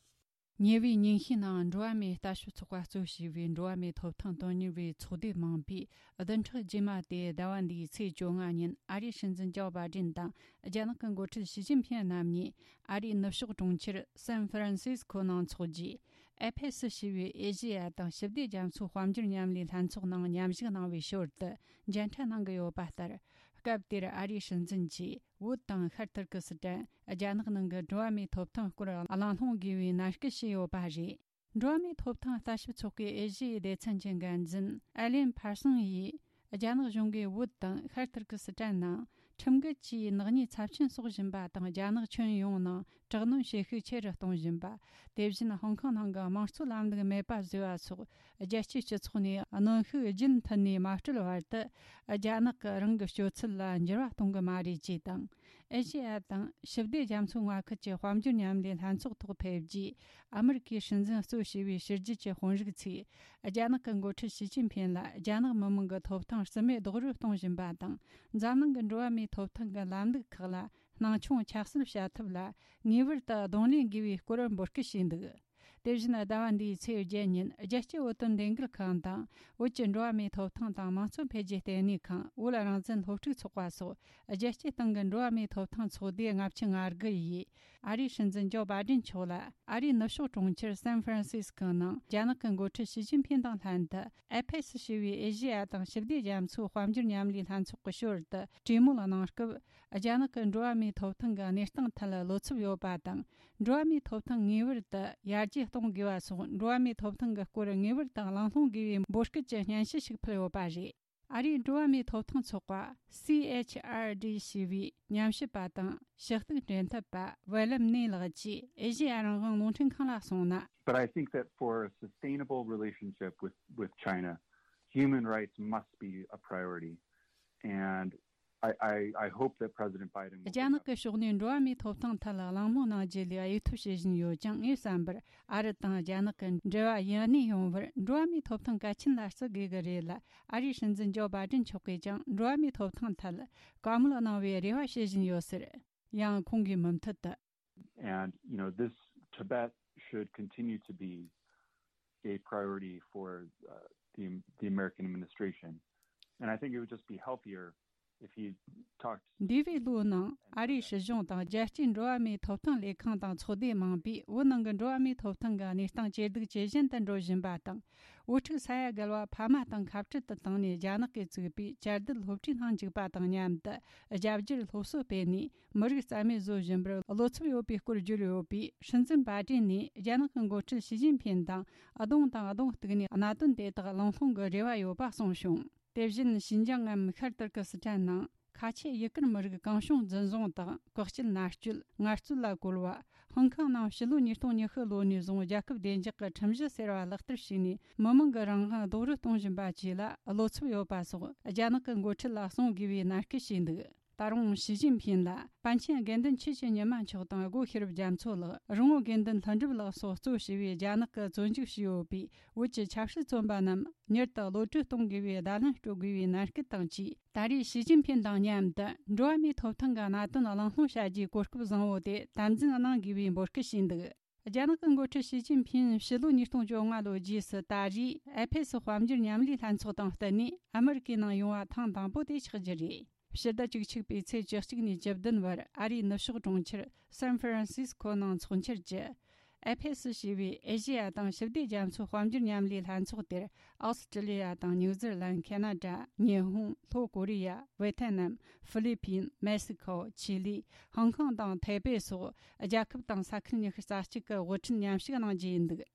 ཉེ་བའི་ཉིན་ཤས་ནང་འགྲོ་བ་མིའི་ལྟ་ཞིབ་ཚོགས་པ་གཙོ་བྱས་པའི་འགྲོ་བ་མིའི་ཐོབ་ཐང་དོན་གཉེར་བའི་ཚོགས་སྡེ་མིན་པའི་བདུན་ཕྲག་རྗེས་མ་དེ་ཟླ་བ་འདིའི་ཚེས་བཅོ་ལྔ་ཉིན་ཨ་རིའི་སྲིད་འཛིན་ཇོ་བྷའི་ཌེན་དང་རྒྱ་ནག་གི་འགོ་ཁྲིད་ཞི་ཅིན་ཕིན་རྣམ་གཉིས་ཨ་རིའི་ནུབ་ཕྱོགས་གྲོང་ཁྱེར་སན་ཧྥ་རན་སིས་ཀོ་ནང་འཚོགས་རྒྱུའི་ཨེ་ཕེ་སི་ཞེས་པའི་ཨེ་ཤེ་ཡ་དང་ཞི་བདེ་རྒྱ་མཚོའི་དཔལ་འབྱོར་མཉམ་ལས་ལྷན་ཚོགས་ནང་མཉམ་ཞུགས་གནང་བའི་ཞོར་དུ་མཇལ་འཕྲད་གནང་གི་ཡོད་པ་ལྟར། སྐབས་དེར་ཨ་རིའི་སྲིད་འཛིན་གྱིས་བོད་དང་ཤར་ཏུར་ཀི་སི་ཐན། རྒྱ་ནག་ནང་གི་འགྲོ་བ་མིའི་ཐོབ་ཐང་སྐོར་གླེང་སློང་དགོས་པའི་ནན་སྐུལ་བྱས་ཡོད་པ་རེད། འགྲོ་བ་མིའི་ཐོབ་ཐང་ལྟ་ཞིབ་ཚོགས་པའི་ཨེ་ཤི་ཡའི་སྡེ་ཚན་གྱི་འགན་འཛིན་ཨེ་ལེན་ཕར་སོང་ཡིས། རྒྱ་ནག་གཞུང་གིས་བོད་དང་ཤར་ཏུར་ཀི་སི་ཐན་ནང་ཁྲིམས་འགལ་གྱིས་ནག་ཉེས་ཚབས་ཆེན་གསོག་བཞིན་པ་དང་། རྒྱ་ནག་ཁྱོན་ཡོངས་ནང་དྲག་གནོན་བྱེད་ཤུགས་ཆེ་རུ་གཏོང་བཞིན་པ། དེ་བཞིན་ཧོང་ཀོང་ནང་གི་དམངས་གཙོའི་ལམ་ལུགས་མེད་པ་བཟོས་པ་སོགས། རྒྱལ་སྤྱིའི་སྤྱི་ཚོགས་ནས་གནོན་ཤུགས་རྒྱུན་མཐུད་ནས་མ་སྤྲོད་བར་དུ། རྒྱ་ནག་གིས་རང་གི་སྤྱོད་ཚུལ་ལ་འགྱུར་བ་གཏོང་གི་མ་རེད་ཅེས་དང་། ཨེ་ཤེ་ཡ་དང་ཞི་བདེ་རྒྱ་མཚོའི་མངའ་ཁུལ་གྱི་དཔལ་འབྱོར་མཉམ་ལས་ལྷན་ཚོགས་ཐོག་ཕེབས་རྗེས། ཨ་མི་རི་ཀའི་སྲིད་འཛིན་གཙོ་བྱས་པའི་ཕྱི་རྒྱལ་གྱི་དཔོན་རིགས་ཚོས། རྒྱ་ནག་གི་འགོ་ཁྲིད་ཞི་ཅིན་ཕིན་ལ་རྒྱ་ནག་མི་དམངས་ཀྱི་ཐོབ་ཐང་རྩིས་མེད་རྡོག་རོལ་གཏོང་བཞིན་པ་དང་། འཛམ་གླིང་གི་འགྲོ་བ་མིའི་ཐོབ་ཐང་གི་ལམ་ལུགས་ཁག་ལ། སྣང་ཆུང་ཆ་སེལ་བྱ་ཐབས་ལ་ངེས་པར་དུ་གདོང་ལེན་དགོས་པའི་སྐོར་འབོད་སྐུལ་བྱས་འདུག་དེ་བཞིན་ཟླ་བ་འདིའི་ཚེས་བརྒྱད་ཉིན་རྒྱལ་སྤྱིའི་བོད་དོན་ལས་འགུལ་ཁང་དང་། བོད་ཀྱི་འགྲོ་བ་མིའི་ཐོབ་ཐང་དང་དམངས་གཙོ་འཕེལ་རྒྱས་ལྟེ་གནས་ཁང་། བོད་རང་བཙན་སློབ་ཕྲུག་ཚོགས་པ་སོགས་རྒྱལ་སྤྱིའི་སྟེང་གི་འགྲོ་བ་མིའི་ཐོབ་ཐང་ཚོགས་སྡེ་ལྔ་བཅུ་ང་དགུ་ཡིས། ཨ་རིའི་སྲིད་འཛིན་ཇོ་བྷའི་ཌེན་མཆོག་ལ་ཨ་རིའི་ནུབ་ཕྱོགས་གྲོང་ཁྱེར་སན་ཧྥ་རན་སིས་ཀོའི་ནང་རྒྱ་ནག་གི་འགོ་ཁྲིད་ཞི་ཅིན་ཕིན་དང་ལྷན་དུ། ཨེ་ཕེ་སི་ཞེས་པའི་ཨེ་ཤེ་ཡ་དང་ཞི་བདེ་རྒྱ་མཚོའི་དཔལ་འབྱོར་མཉམ་ལས་ལྷན་ཚོགས་ཀྱི་ཞོར་དུ་གྲོས་མོལ་གནང་སྐབས། རྒྱ་ནག་གི་འགྲོ་བ་མིའི་ཐོབ་ཐང་གི་གནས་སྟངས་ཐད་བློ་འཚབ་ཡོད་པ་དང་། འགྲོ་བ་མིའི་ཐོབ་ཐང་ངེས་པར་དུ་ཡར་རྒྱས་གཏོང་དགོས་པ་སོགས། འགྲོ་བ་མིའི་ཐོབ་ཐང་གི་སྐོར་ངེས་པར་དུ་གླེང་སློང་དགོས་པའི་འབོད་སྐུལ་གྱི་སྙན་ཞུ་ཞིག་ཕུལ་ཡོད་པ་རེད། ཨ་རིའི་འགྲོ་བ་མིའི་ཐོབ་ཐང་ཚོགས་པ། སི་ཨེཆ་ཨར་ཌི་ཞེས་པའི་ཉམས་ཞིབ་པ་དང་ཞུ་གཏུག་འབྲེལ་མཐུད་པ་ཝེ་ལམ་ནེ་ལགས་ཀྱིས་ཨེ་ཤེ་ཡ་རང་དབང་རླུང་འཕྲིན་ཁང་ལ་གསུངས་ན། But I think that for a sustainable relationship with, with China, human rights must be a priority. And I, I, I hope that President Biden will རྒྱ་ནག་གི་ཕྱོགས་ནས་འགྲོ་བ་མིའི་ཐོབ་ཐང་ཐད་ལ་གླེང་མོལ་གནང་རྒྱུ་ལས་གཡོལ་ཐབས་བྱེད་བཞིན་ཡོད་ཀྱང་། ངའི་བསམ་པར་ཨ་རི་དང་རྒྱ་ནག་གི་འབྲེལ་བ་ཡུན་གནས་ཡོང་བར་འགྲོ་བ་མིའི་ཐོབ་ཐང་གལ་ཆེན་ལ་བརྩི་དགོས་ཀྱི་རེད་ལ། ཨ་རིའི་སྲིད་འཛིན་ཇོ་བྷའི་ཌེན་མཆོག་གིས་ཀྱང་འགྲོ་བ་མིའི་ཐོབ་ཐང་ཐད་བཀའ་མོལ་གནང་བའི་རེ་བ་བྱེད་བཞིན་ཡོད་ཟེར། ཡང་ཁོང་གིས་མུ་མཐུད་དུ། And, you know, this Tibet should continue to be a priority for uh, the, the American administration. And I think it would just be healthier if he talked འདས་པའི་ལོའི་ནང་ཨ་རིའི་སྲིད་གཞུང་དང་རྒྱལ་སྤྱིའི་འགྲོ་བ་མིའི་ཐོབ་ཐང་ལས་ཁང་དང་ཚོགས་སྡེ་མང་པོས་བོད་ནང་གི་འགྲོ་བ་མིའི་ཐོབ་ཐང་གི་གནས་སྟངས་ཇེ་སྡུག་ཇེ་ཞན་དུ་འགྲོ་བཞིན་པ་དང་། བོད་ཕྲུག་ས་ཡ་བརྒལ་བ་ཕ་མ་དང་ཁ་བྲལ་དུ་བཏང་ནས་རྒྱ་ནག་གིས་བཙུགས་པའི་བཅའ་སྡོད་སློབ་གྲྭའི་ནང་འཇུག་པ་དང་མཉམ་དུ་རྒྱ་བསྒྱུར་སློབ་གསོ་སྤེལ་ནས། མི་རིགས་རྩ་མེད་བཟོ་བཞིན་པར་བློ་འཚབ་ཡོད་པའི་སྐོར་བརྗོད་ཡོད་པས། སྲིད་འཛིན་པ་ཏྲིན་ནས་རྒྱ་ནག་གི་འགོ་ཁྲིད་ཞི་ཅིན་ཕིན་དང་གདོང་དང་གདོང་གཏུག་ནས་གནད་དོན་དེ་དག་གླེང་སློང་གི་རེ་བ་ཡོད་པ་གསུངས་བྱུང་། དེ་བཞིན་ཞིན་ཅང་ངམ་ཤར་ཏུར་ཀི་སི་ཐན་ནང་ཁ་ཆེ་ཡུ་གུར་མི་རིགས་གང་བྱུང་འཛིན་བཟུང་དང་བཀག་སྐྱིལ་མནར་གཅོད་ངལ་རྩོལ་ལ་བཀོལ་བ། ཧོང་ཀོང་ནང་ཕྱི་ལོ་ཉིས་སྟོང་ཉི་ཤུ་ལོ་ནས་བཟུང་རྒྱལ་ཁབ་བདེ་འཇགས་ཀྱི་ཁྲིམས་གཞི་ཟེར་བ་ལག་བསྟར་བྱས་ནས་མི་མང་གི་རང་དབང་རྡོག་རོལ་གཏོང་བཞིན་པ་བཅས་ལ་བློ་འཚབ་ཡོད་པ་སོགས་རྒྱ་ནག་གི་འགོ་ཁྲིད་ལ་གསུང་དགོས་པའི་མནར་གཅོད་བྱས་འདུག་ད་རུང་ཞི་ཅིན་ཕིན་ལ་པཎ་ཆེན་དགེ་འདུན་ཆོས་ཀྱི་ཉི་མ་མཆོག་དང་སྒོ་ཤེས་རབ་རྒྱ་མཚོ་ལགས། རོང་བོ་དགེ་འདུན་ལྷུན་གྲུབ་ལགས་སོགས་གཙོ་བྱས་པའི་རྒྱ་ནག་གིས་བཙོན་འཇུག་བྱས་ཡོད་པའི་བོད་ཀྱི་ཆབ་སྲིད་བཙོན་པ་རྣམས་མྱུར་དུ་གློད་གྲོལ་གཏོང་དགོས་པའི་བརྡ་ལན་སྤྲོད་དགོས་པའི་གནད་སྐུལ་དང་བཅས། ད་རེས་ཞི་ཅིན་ཕིན་དང་མཉམ་དུ་འགྲོ་བ་མིའི་ཐོབ་ཐང་གི་གནད་དོན་གླེང་སློང་བྱ་རྒྱུའི་གོ་སྐབས་བཟང་བོ་དེ་དམ་འཛིན་གནང་དགོས་པའི་འབོད་སྐུལ་བྱས་འདུག་རྒྱ་ནག་གི་འགོ་ཁྲིད་ཞི་ཅིན་ཕིན་ཕྱི་ལོ་ཉིས་སྟོང་བཅོ་ལྔ་ལོའི་རྗེས་སུ་ད་རེས་ཨེ་ཕེ་སི་དཔལ་འབྱོར་མཉམ་ལས་ལྷན་ཚོགས་དང་བསྟུན་ནས་ཨ་མི་རི་ཀའི་ནང་ཡོང་བ་ཐེངས་དང་པོ་དེ་ཆགས་རྒྱུ་རེད། ཕྱི་ཟླ་བཅུ་གཅིག་པའི་ཚེས་བཅུ་གཅིག་ནས་བཅུ་བདུན་བར་ཨ་རིའི་ནུབ་ཕྱོགས་གྲོང་ཁྱེར་སན་ཧྥ་རན་སིས་ཁོ་ནང་འཚོགས་འཆར་གྱི་ཨེ་ཕེ་སི་ཞེས་པའི་ཨེ་ཤེ་ཡ་དང་ཞི་བདེ་རྒྱ་མཚོའི་དཔལ་འབྱོར་མཉམ་ལས་ལྷན་ཚོགས་དེར། ཨོ་སི་ཀྲི་ལི་ཡ་དང་ནིའུ་ཛི་ལན། ཁེ་ན་ཌ། ཉི་ཧོང་། ལྷོ་ཀོ་རི་ཡ། ཝེ་ཐེ་ནམ། ཧྥི་ལི་ཕིན། མེག་སི་ཁོ། ཆི་ལི། ཧོང་ཀོང་དང་ཐའེ་པེ་སོགས་རྒྱལ་ཁབ་དང་ས་ཁུལ་ཉི་ཤུ་རྩ་གཅིག་གི་དབུ་ཁྲིད་མཉམ་ཞུགས་གནང་རྒྱུ་ཡིན་འདུག་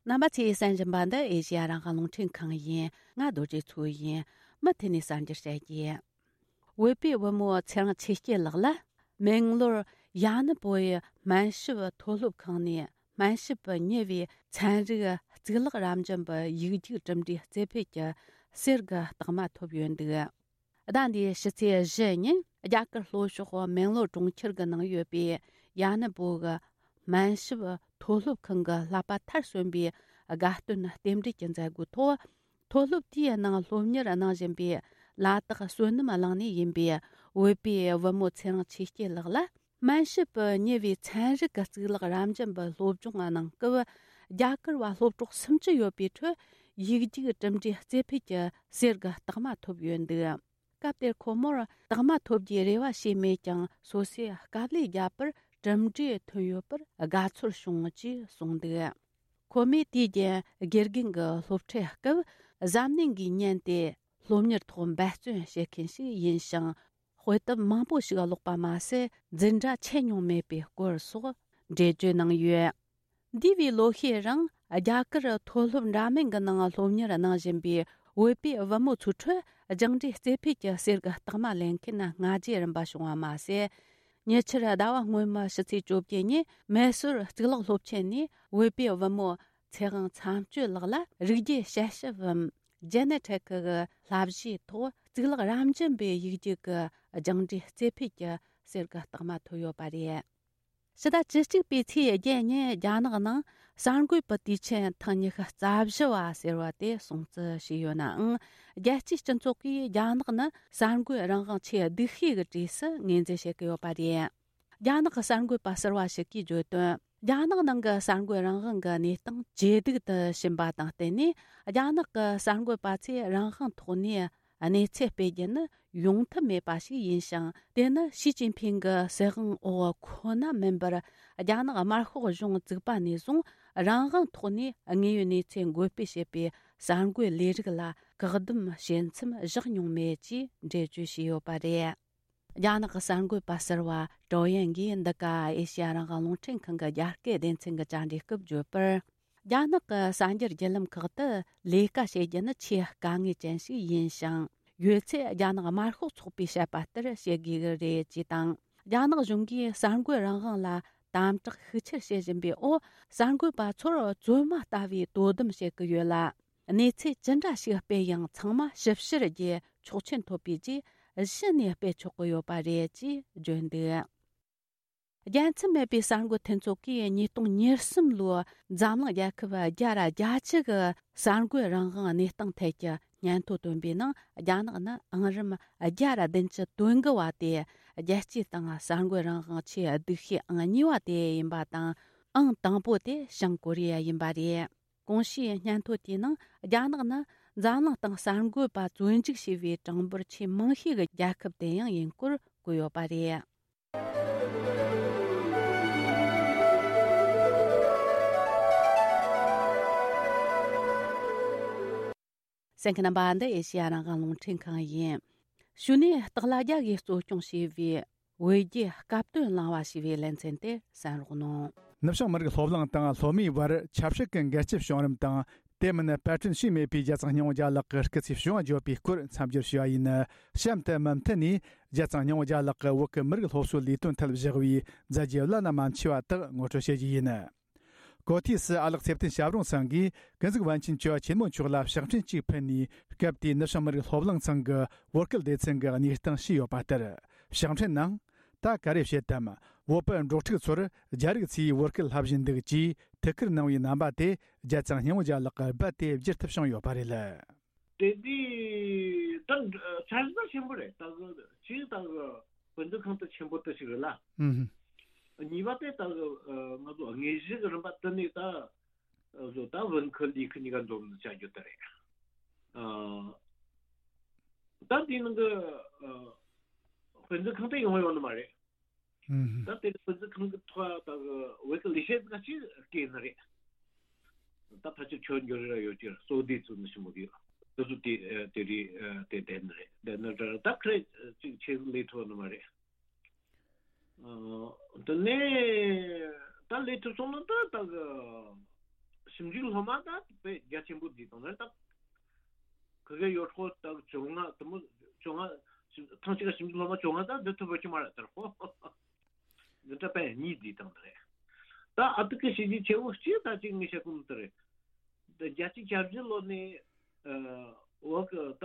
རྣམ་པ་ཚོས་གསན་བཞིན་པ་འདི་ཨེ་ཤེ་ཡ་རང་དབང་རླུང་འཕྲིན་ཁང་ཡིན། ང་རྡོ་རྗེ་མཚོ་ཡིན། མུ་མཐུད་ནས་གསར་འགྱུར་བཤད་རྒྱུ། བོད་པའི་བུ་མོ་ཚེ་རིང་ཆོས་སྐྱིད་ལགས་ལ་མེང་ལོར་ཡ་ནི་པོའི་སྨན་ཞབས་མཐོ་སློབ་ཁང་ནས་སྨན་ཞབས་ཉེ་བའི་ཚན་རིག་གཙུག་ལག་རབ་འབྱམས་པའི་ཡིག་རྒྱུགས་གྲུབ་འབྲས་རྩེ་ཕུད་ཀྱི་གསེར་གྱི་རྟགས་མ་ཐོབ་ཡོད་འདུག་ཟླ་འདིའི་ཕྱི་ཚེས་བཞི་ཉིན་རྒྱ་གར་ལྷོ་ཕྱོགས་མེང་ལོར་གྲོང་ཁྱེར་གྱི་ནང་ཡོད་པའི་ཡ་ནི་པོ་གི་སྨན་ཞབས་མཐོ་སློབ་ཁང་གི་བསླབ་པ་མཐར་སོན་པའི་དགའ་སྟོན་རྟེན་འབྲེལ་གྱི་མཛད་སྒོའི་ཐོག་མཐོ་སློབ་དེའི་ནང་སློབ་གཉེར་གནང་བཞིན་པའི་ལ་དྭགས་བསོད་ནམས་གླིང་ནས་ཡིན་པའི་བོད་པའི་བུ་མོ་ཚེ་རིང་ཆོས་སྐྱིད་ལགས་ལ། སྨན་ཞབས་ཉེ་བའི་ཚན་རིག་གི་གཙུག་ལག་རབ་འབྱམས་པའི་སློབ་སྦྱོང་གནང་སྐབས། རྒྱ་གར་བ་སློབ་གྲོགས་སུམ་ཅུ་ཡོད་པའི་ཁྲོད། ཡིག་རྒྱུགས་གྲུབ་འབྲས་རྩེ་ཕུད་ཀྱི་གསེར་གྱི་རྟགས་མ་ཐོབ་ཡོད་འདུག་སྐབས་དེར་ཁོ་མོར་རྟགས་མ་ཐོབ་རྒྱུའི་རེ་བ་བྱས་མེད་ཀྱང་། སོ་སོས་དཀའ་ལས་བརྒྱབ་པར་གྲུབ་འབྲས་ཐོན་ཡོད་པར་དགའ་ཚོར་བྱུང་ཅེས་གསུངས་འདུག་ཁོ་མོས་དུས་རྒྱུན་དགེ་རྒན་གྱི་སློབ་ཁྲིད་སྐབས། གཟབ་ནན་གྱིས་ཉན་ཏེ། སློབ་གཉེར་ཐོག་འབད་བརྩོན་བྱེད་མཁན་ཞིག་ཡིན་ཞིང་། དཔེ་དེབ་མང་པོ་ཞིག་ཀློག་པ་མ་ཟད། འཛིན་གྲྭ་ཆད་མྱོང་མེད་པའི་སྐོར་སོགས་འགྲེལ་བརྗོད་གནང་ཡོད། འདས་པའི་ལོ་ཤས་རིང་རྒྱ་གར་མཐོ་སློབ་འདྲ་མིན་གྱི་ནང་སློབ་གཉེར་གནང་བཞིན་པའི་བོད་པའི་བུ་མོ་ཚོའི་ཁྲོད། སྦྱངས་འབྲས་རྩེ་ཕུད་ཀྱི་གསེར་གྱི་རྟགས་མ་ལེན་མཁན་སྔ་རྗེས་རིམ་པ་བྱུང་བ་མ་ཟད། ཉེ་ཆར་ཟླ་བ་སྔོན་མའི་ཕྱི་ཚེས་བཅོ་བརྒྱད་ཉིན་མེ་སོར་གཙུག་ལག་སློབ་ཆེན་ནས་བོད་པའི་བུ་མོ་ཚེ་དབང་མཚམས་གཅོད་ལགས་ལ་རིགས་རྒྱུད་དཔྱད་ཞིབ་བམ། ཇེ་ནེ་ཊིག་གི་བསླབ་གཞིའི་ཐོག་གཙུག་ལག་རབ་འབྱམས་པའི་ཡིག་རྒྱུགས་ཀྱི་སྦྱངས་འབྲས་རྩེ་ཕུད་ཀྱི་གསེར་གྱི་རྟགས་མ་ཐོབ་ཡོད་པ་རེད། ཕྱི་ཟླ་བཅུ་གཅིག་པའི་ཚེས་བརྒྱད་ཉིན་རྒྱ་ནག་ནང་གསར་འགོད་པའི་དུས་ཆེན་ཐེངས་ཉི་ཤུ་རྩ་བཞི་བ་ཟེར་བ་དེ་སྲུང་བརྩི་བྱས་ཡོད་ནའང་། རྒྱལ་སྤྱིའི་སྤྱི་ཚོགས་ཀྱིས་རྒྱ་ནག་ནི་གསར་འགོད་རང་དབང་ཆེས་སྡུག་ཤོས་ཀྱི་གྲས་སུ་ངོས་འཛིན་བྱེད་ཀྱི་ཡོད་པ་རེད། རྒྱ་ནག་གི་གསར་འགོད་པ་ཟུར་བ་ཞིག་གིས་བརྗོད་དོན། རྒྱ་ནག་ནང་གི་གསར་འགོད་རང་དབང་གི་གནས་སྟངས་ཇེ་སྡུག་ཏུ་ཕྱིན་པ་དང་བསྟུན་ནས། རྒྱ་ནག་གི་གསར་འགོད་པ་ཚོས་རང་དབང་ཐོག་ནས་གནས་ཚུལ་སྤེལ་རྒྱུ་ནི་ཡོང་ཐབས་མེད་པ་ཞིག་ཡིན་ཞིང་། དེ་ནི་ཞི་ཅིན་ཕིང་གི་སྲིད་དབང་འོག་ཁོ་ན་མིན་པར། རྒྱ་ནག་དམར་ཤོག་གཞུང་བཙུགས་པ་ནས་བཟུང་རང་དབང་ཐོག་ནས་དངོས་ཡོད་གནས་ཚུལ་འགོད་སྤེལ་བྱེད་པའི་གསར་འགོད་ལས་རིགས་ལ་བཀག་སྡོམ་བྱེད་མཚམས་བཞག་མྱོང་མེད་ཅེས་འགྲེལ་བརྗོད་བྱས་ཡོད་པ་རེད། རྒྱ་ནག་གི་གསར་འགོད་པ་ཟུར་བ་ཀྲོ་ཡན་གྱིས་འདི་ག་ཨེ་ཤེ་ཡ་རང་དབང་རླུང་འཕྲིན་ཁང་གི་རྒྱ་སྐད་སྡེ་ཚན་གྱི་བཅར་འདྲིའི་སྐབས་བརྗོད་པར། རྒྱ་ནག་གི་གསར་འགྱུར་བརྒྱུད་ལམ་ཁག་ཏུ་ལས་ཀ་བྱེད་རྒྱུ་ནི་ཆེས་དཀའ་ངལ་ཅན་ཞིག་ཡིན་ཞིང་། ཡོད་ཚད་རྒྱ་ནག་དམར་ཤོག་ཚོགས་པས་བཤད་པ་ལྟར་བྱེད་དགོས་ཀྱི་རེད་ཅེས་དང་། རྒྱ་ནག་གཞུང་གིས་གསར་འགོད་རང་དབང་ལ་དམ་དྲག་ཤུགས་ཆེར་བྱེད་བཞིན་པའི་འོག་གསར་འགོད་པ་ཚོར་བཙོན་མ་ལྟ་བུའི་དོ་དམ་བྱེད་ཀྱི་ཡོད་ལ། གནས་ཚུལ་ཅི་འདྲ་ཞིག་སྤེལ་ཡང་ཚང་མ་ཞིབ་བཤེར་གྱིས་ཆོག་མཆན་ཐོབ་པའི་རྗེས་གཞི་ནས་སྤེལ་ཆོག་གི་ཡོད་པ་རེད་ཅེས་བརྗོད་འདུག་རྒྱལ་མཚམས་མེད་པའི་གསར་འགོད་མཐུན་ཚོགས་ཀྱིས་ཉིས་སྟོང་ཉེར་གསུམ་ལོའི་འཛམ་གླིང་རྒྱལ་ཁབ་བརྒྱ་ར་བརྒྱད་ཅུ་གི་གསར་འགོད་རང་དབང་གནས་སྟངས་ཐད་ཀྱི་ སྙན་ཐོ་བཏོན་པའི་ནང་རྒྱ་ནག་ནི་ཨང་རིམ་བརྒྱ་ར་བདུན་ཅུ་དོན་དགུ་བ་སྟེ། རྒྱལ་སྤྱིའི་སྟེང་གསར་འགོད་རང་དབང་ཆེས་སྡུག་ཤོས་ཨང་གཉིས་པ་དེ་ཡིན་པ་དང་། ཨང་དང་པོ་དེ་བྱང་ཀོ་རི་ཡ་ཡིན་པ་རེད། གོང་ཞུས་སྙན་ཐོ་དེའི་ནང་རྒྱ་ནག་ནི་འཛམ་གླིང་སྟེང་གསར་འགོད་པ་བཙོན་འཇུག་བྱས་པའི་གྲངས་འབོར་ཆེས་མང་ཤོས་ཀྱི་རྒྱལ་ཁབ་དེ་ཡང་ཡིན་སྐོར་བཀོད་ཡོད་པ་རེད། གསན་མཁན་རྣམ་པ། འདི་ཨེ་ཤེ་ཡ་རང་དབང་རླུང་འཕྲིན་ཁང་ཡིན། ཞུ་ནས་སྟག་ལྷ་རྒྱལ་གྱིས་གཙོ་སྐྱོང་བྱས་པའི་བོད་རྒྱའི་སྐབས་དོན་གླེང་བ་ཞེས་པའི་ལེ་ཚན་དེ་གསན་རོགས་གནང་། ནུབ་བྱང་མི་རིགས་སློབ་གླིང་དང་སློབ་མའི་བར་ཆབ་སྲིད་ཀྱི་འགལ་རྐྱེན་བྱུང་རིམ་དང་། དེ་མིན་པར་སྐྲུན་བྱས་མེད་པའི་རྒྱལ་བཙུན་སྙིང་པོ་རྒྱལ་ལགས་ཀྱི་སྐུ་ཚེའི་བྱུང་བ་བརྗོད་པའི་སྐོར་མཚམས་སྦྱོར་ཞུས་པ་ཡིན། གཤམ་དུ་མུ་མཐུད་ནས་རྒྱལ་བཙུན་སྙིང་པོ་རྒྱལ་ལགས་ཀྱིས་བོད་ཀྱི་མི་རིགས་སློབ་གསོའི་ལས་དོན་ཐད་བཞག་པའི་མཛད་རྗེས་བླ་ན་མ་མཆིས་པ་དག་ངོ་སྤྲོད་བྱེད་རྒྱུ་ཡིན། གོ་ཐོས་སུ་ཨ་ལགས་ཚེ་བརྟན་ཞབས་དྲུང་ཚང་གིས་ཀུན་གཟིགས་པཎ་ཆེན་བཅུ་པ་ཆེན་མོ་མཆོག་ལ་ཕྱག་འཕྲིན་གཅིག་ཕུལ་ནས། སྐབས་དེའི་ནུབ་བྱང་མི་རིགས་སློབ་གླིང་ཚང་གི་བོད་སྐད་སྡེ་ཚན་གྱི་གནས་སྟངས་ཞུས་ཡོད་པ་ལྟར། ཕྱག་འཕྲིན་ནང་། ད་ག་རེ་བཤད་དམ། བོད་པ་འབྲོག་ཕྲུག་ཚོར་རྒྱ་རིགས་ཚོས་བོད་སྐད་བསླབ་བཞིན་འདུག་ཅེས་ཐུགས་ཁུར་གནང་བའི་རྣམ་པ་དེ་རྒྱལ་བཙུན་སྙིང་པོ་རྒྱལ་ལགས་ཀྱིས་རྦད་དེ་བརྗེད་ཐབས་བྱུང་ཡོད་པ་རེད། དེ་དུས་ད་འཚར་ལོངས་ཆེན་པོ་རེད། ད་གི་ཅིག་ད་གི་དཔེ་མཛོད་ཁང་དེ་ཆེན་པོ་དེ་ཞིག་རེད་ལ། ཨུམ། གཉིས་པ་དེ་ད་གི་ང་ཚོ་དངོས་གཞི་གི་རིམ་པ་དེ་ནས་ད་བཟོ་ད་བོན་ཁུལ་ལས་ཁུལ་གཉིས་ཀ་འཛོམས་ནས་བྱ་རྒྱུ་དེ་རེད། ཨ། ད་དེའི་ནང་གི་ཨ་དཔེ་མཛོད་ཁང་དེ་ཡོང་ཡོང་ནི་མ་རེད། ཨུམ། ད་དེ་དཔེ་མཛོད་ཁང་གི་ཐོག་ད་གི་བོད་ཀྱི་ལས་བྱེད་ཁག་ཅིག་བསྐོས་ནི་རེད། ད་ཕལ་ཆེར་ཆོས་འབྱོར་ར་ཡོད་ཀྱི་གཙོ་བདེ་ཚུལ་ནི་ཞིམ་པོ་གི་དེ་ཚོ་དེ་དེ་རེད། དེ་བསྡད་ནི་རེད། བསྡད་ནི་རེད། ད་ཁ་རེ་ཅིག་ཆེ་ལས་ཐུབ་ནི་མ་རེད། ཨ། དེ་ནས་ད་ལས་ཐུབ་སོང་ན་ད་ད་གི་ཞིབ་འཇུག་སློབ་མ་ད་དཔེ་རྒྱ་ཆེན་པོ་བསྡུས་བཏང་ན་ད་ཁི་གེ་ཡོད་ཁོ་ད་བཅོ་ལྔ་དེ་མོ་བཅོ་ལྔ་ཐེངས་གཅིག་ག་ཞིབ་འཇུག་སློབ་མ་བཅོ་ལྔ་ད་བསྡུ་ཐུབ་པ་ཅི་མ་རེད་དར་ཁོ། འདི་འདྲ་དཔེ་གཉིས་བསྡུས་བཏང་ནི་རེད། ད་ཨ་ཏི་ཀི་བྱས་རྗེས་ཆེ་བོ་གཅིག་ད་ཅིག་ངས་བཤད་གོ་ནི་དེ་རེད། ད་བརྒྱད་ཅུ་གྱ་བཞི་ལོ་ནས་ཨ་འོག་གི་ད་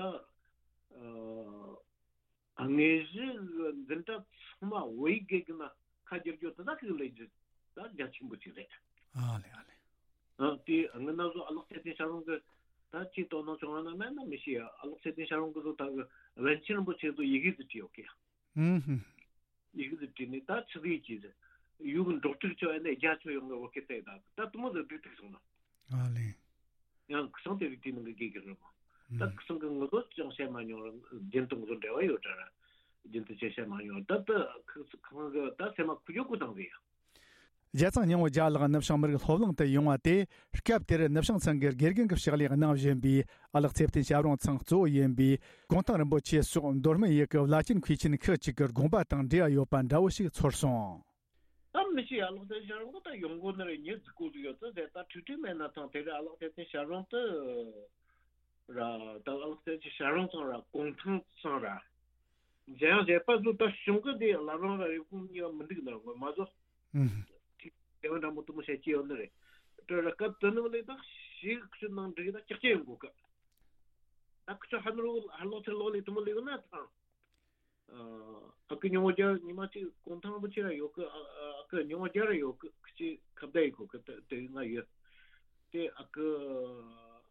ཨ། དངོས་གཞི་གི་འཛིན་གྲྭ་ཚང་མ་བོད་ཡིག་དགེ་རྒན་ན་ཁ་བསྒྱུར་རྒྱུ་དེ་དག་གི་ལས་རྒྱུ་ད་རྒྱ་ཆེན་པོ་ཅིག་རེད། ཨ་ལེ་ཨ་ལེ། ཨ་དེ་སྔོན་ན་བཟོ་ཨ་ལགས་ཚེ་བརྟན་ཞབས་དྲུང་གི་ད་ཅིག་དོ་སྣང་བྱུང་བ་ན་མེད་ན་མི་ཤེས་ཡ། ཨ་ལགས་ཚེ་བརྟན་ཞབས་དྲུང་གི་བཟོ་ད་གི་པཎ་ཆེན་རིན་པོ་ཆེ་ཚོ་ཡི་གེ་ཟིག་བྲིས་ཡོད་གི། ཨུམ་ཧུམ། ཡི་གེ་ཟིག་བྲིས་ནས་ད་ཆི་ཟིག་ཅིག་ཟེར། ཡུལ་གི་འབྲོག་ཕྲུག་ཚོ་ཨ་ནེ་རྒྱ་ཆོ་ཡོང་གི་བོད་སྐད་བལྟས་ད་ད་དུ་མོ་ཟིག་སྡུག་ཐུག་སོང་ན། ཨ་ལེ། ཡང་ཁུ་སང་དེ་རིགས་དེའི་ནང་གི་དགེ་རྒན་རེད་མོ། ད་ཁུ་སང་གི་ངོ་ལོག་ཅང་བཤད་མ་མྱོང་ར་རྒྱུན་དུ་ངོ་ལོག་འབྲེལ་བ་ཡོད་དྲ་ར། རྒྱུན་དུ་ཅང་བཤད་མ་མྱོང་ད་ད་ཁུ་ཁང་གི་ད་སེམས་མ་ཁུ་ཅོ་ཁུ་དང་གི་ཡ། རྒྱལ་བཙུན་སྙིང་པོ་རྒྱལ་ལགས་ནུབ་བྱང་མི་རིགས་སློབ་གླིང་དུ་ཡོང་བ་དེ་སྐབས་དེར་ནུབ་བྱང་ཚང་གི་དགེ་རྒན་གྱི་ཕྱག་ལས་གནང་བཞིན་པའི་ཨ་ལགས་ཚེ་བརྟན་ཞབས་དྲུང་ཚང་གཙོ་བོ་ཡིན་པའི་གུང་ཐང་རིན་པོ་ཆེ་སོགས་མདོ་སྨད་ཡུལ་གྱི་བླ་ཆེན་མཁས་ཆེན་ཁག་ཅིག་གི་དགོངས་པ་དང་འབྲེལ་བ་ཡོད་པ་འདྲ་བོ་ཞིག་ཚོར་སོང་། ད་མི་ཤེས་ཨ་ལགས་ཚེ་བརྟན་ཞབས་དྲུང་ད་ཡོང་གོ་ནི་རེད། ཉི་ཟིག་གོ་ཟིག་ཡོད་ཙི་ཟེར་ད་ཁྲིག་ཁྲིག་མེད་ན་ཐང་དེ་རེད། ཨ་ལགས་ཚེ་བརྟན་ཞབས་དྲུང་ད་ར་ད་ཨ་ལགས་ཚེ་བརྟན་ཞབས་དྲུང་ཚང་ར་གུང་ཐང་ཚང་ར་འཇམ་དབྱངས་བཞད་པ་ཚོ་ད་གཞུང་གི་དེ་བླ་བྲང་ར་རེབ་གོང་གཉིས་ཀ་མི་འདུག་ནར་ངོ་མ་བཟོ། ཨུམ། ཁྲིག་དེ་བ་འདྲ་མོ་དུ་མོ་བཤད་ཀྱི་ཡོད་ནི་རེད། དེ་ར་སྐབས་དེ་ནི་མ་ལས་ད་ཞིག་ཁྲི་ནང་འགྲིག་ད་ཀྱག་ཀྱག་ཡོང་གོ་གི། ད་ཁུ་ཆོ་ཧ་ནུ་རུ་ཧ་ལོ་ཚེ་ལོ་ལི་དུ་མོ་ལི་གི་ན་ཐང་། ཨ་ཨ་ཁུ་ཉི་མ་རྒྱལ་ཉི་མ་གཅིག་གུང་ཐང་རིན་པོ་ཆེ་ར་ཡོད་གི། ཨ་ཨ་ཁུ་ཉི་མ་རྒྱལ་ར་ཡོད་གི། ཁུ་ཆེ་ཁ་བརྡ་ཡི་གོ་གི། དེ་དེ་ང་ཡོད། དེ་ཨ་ཁུ་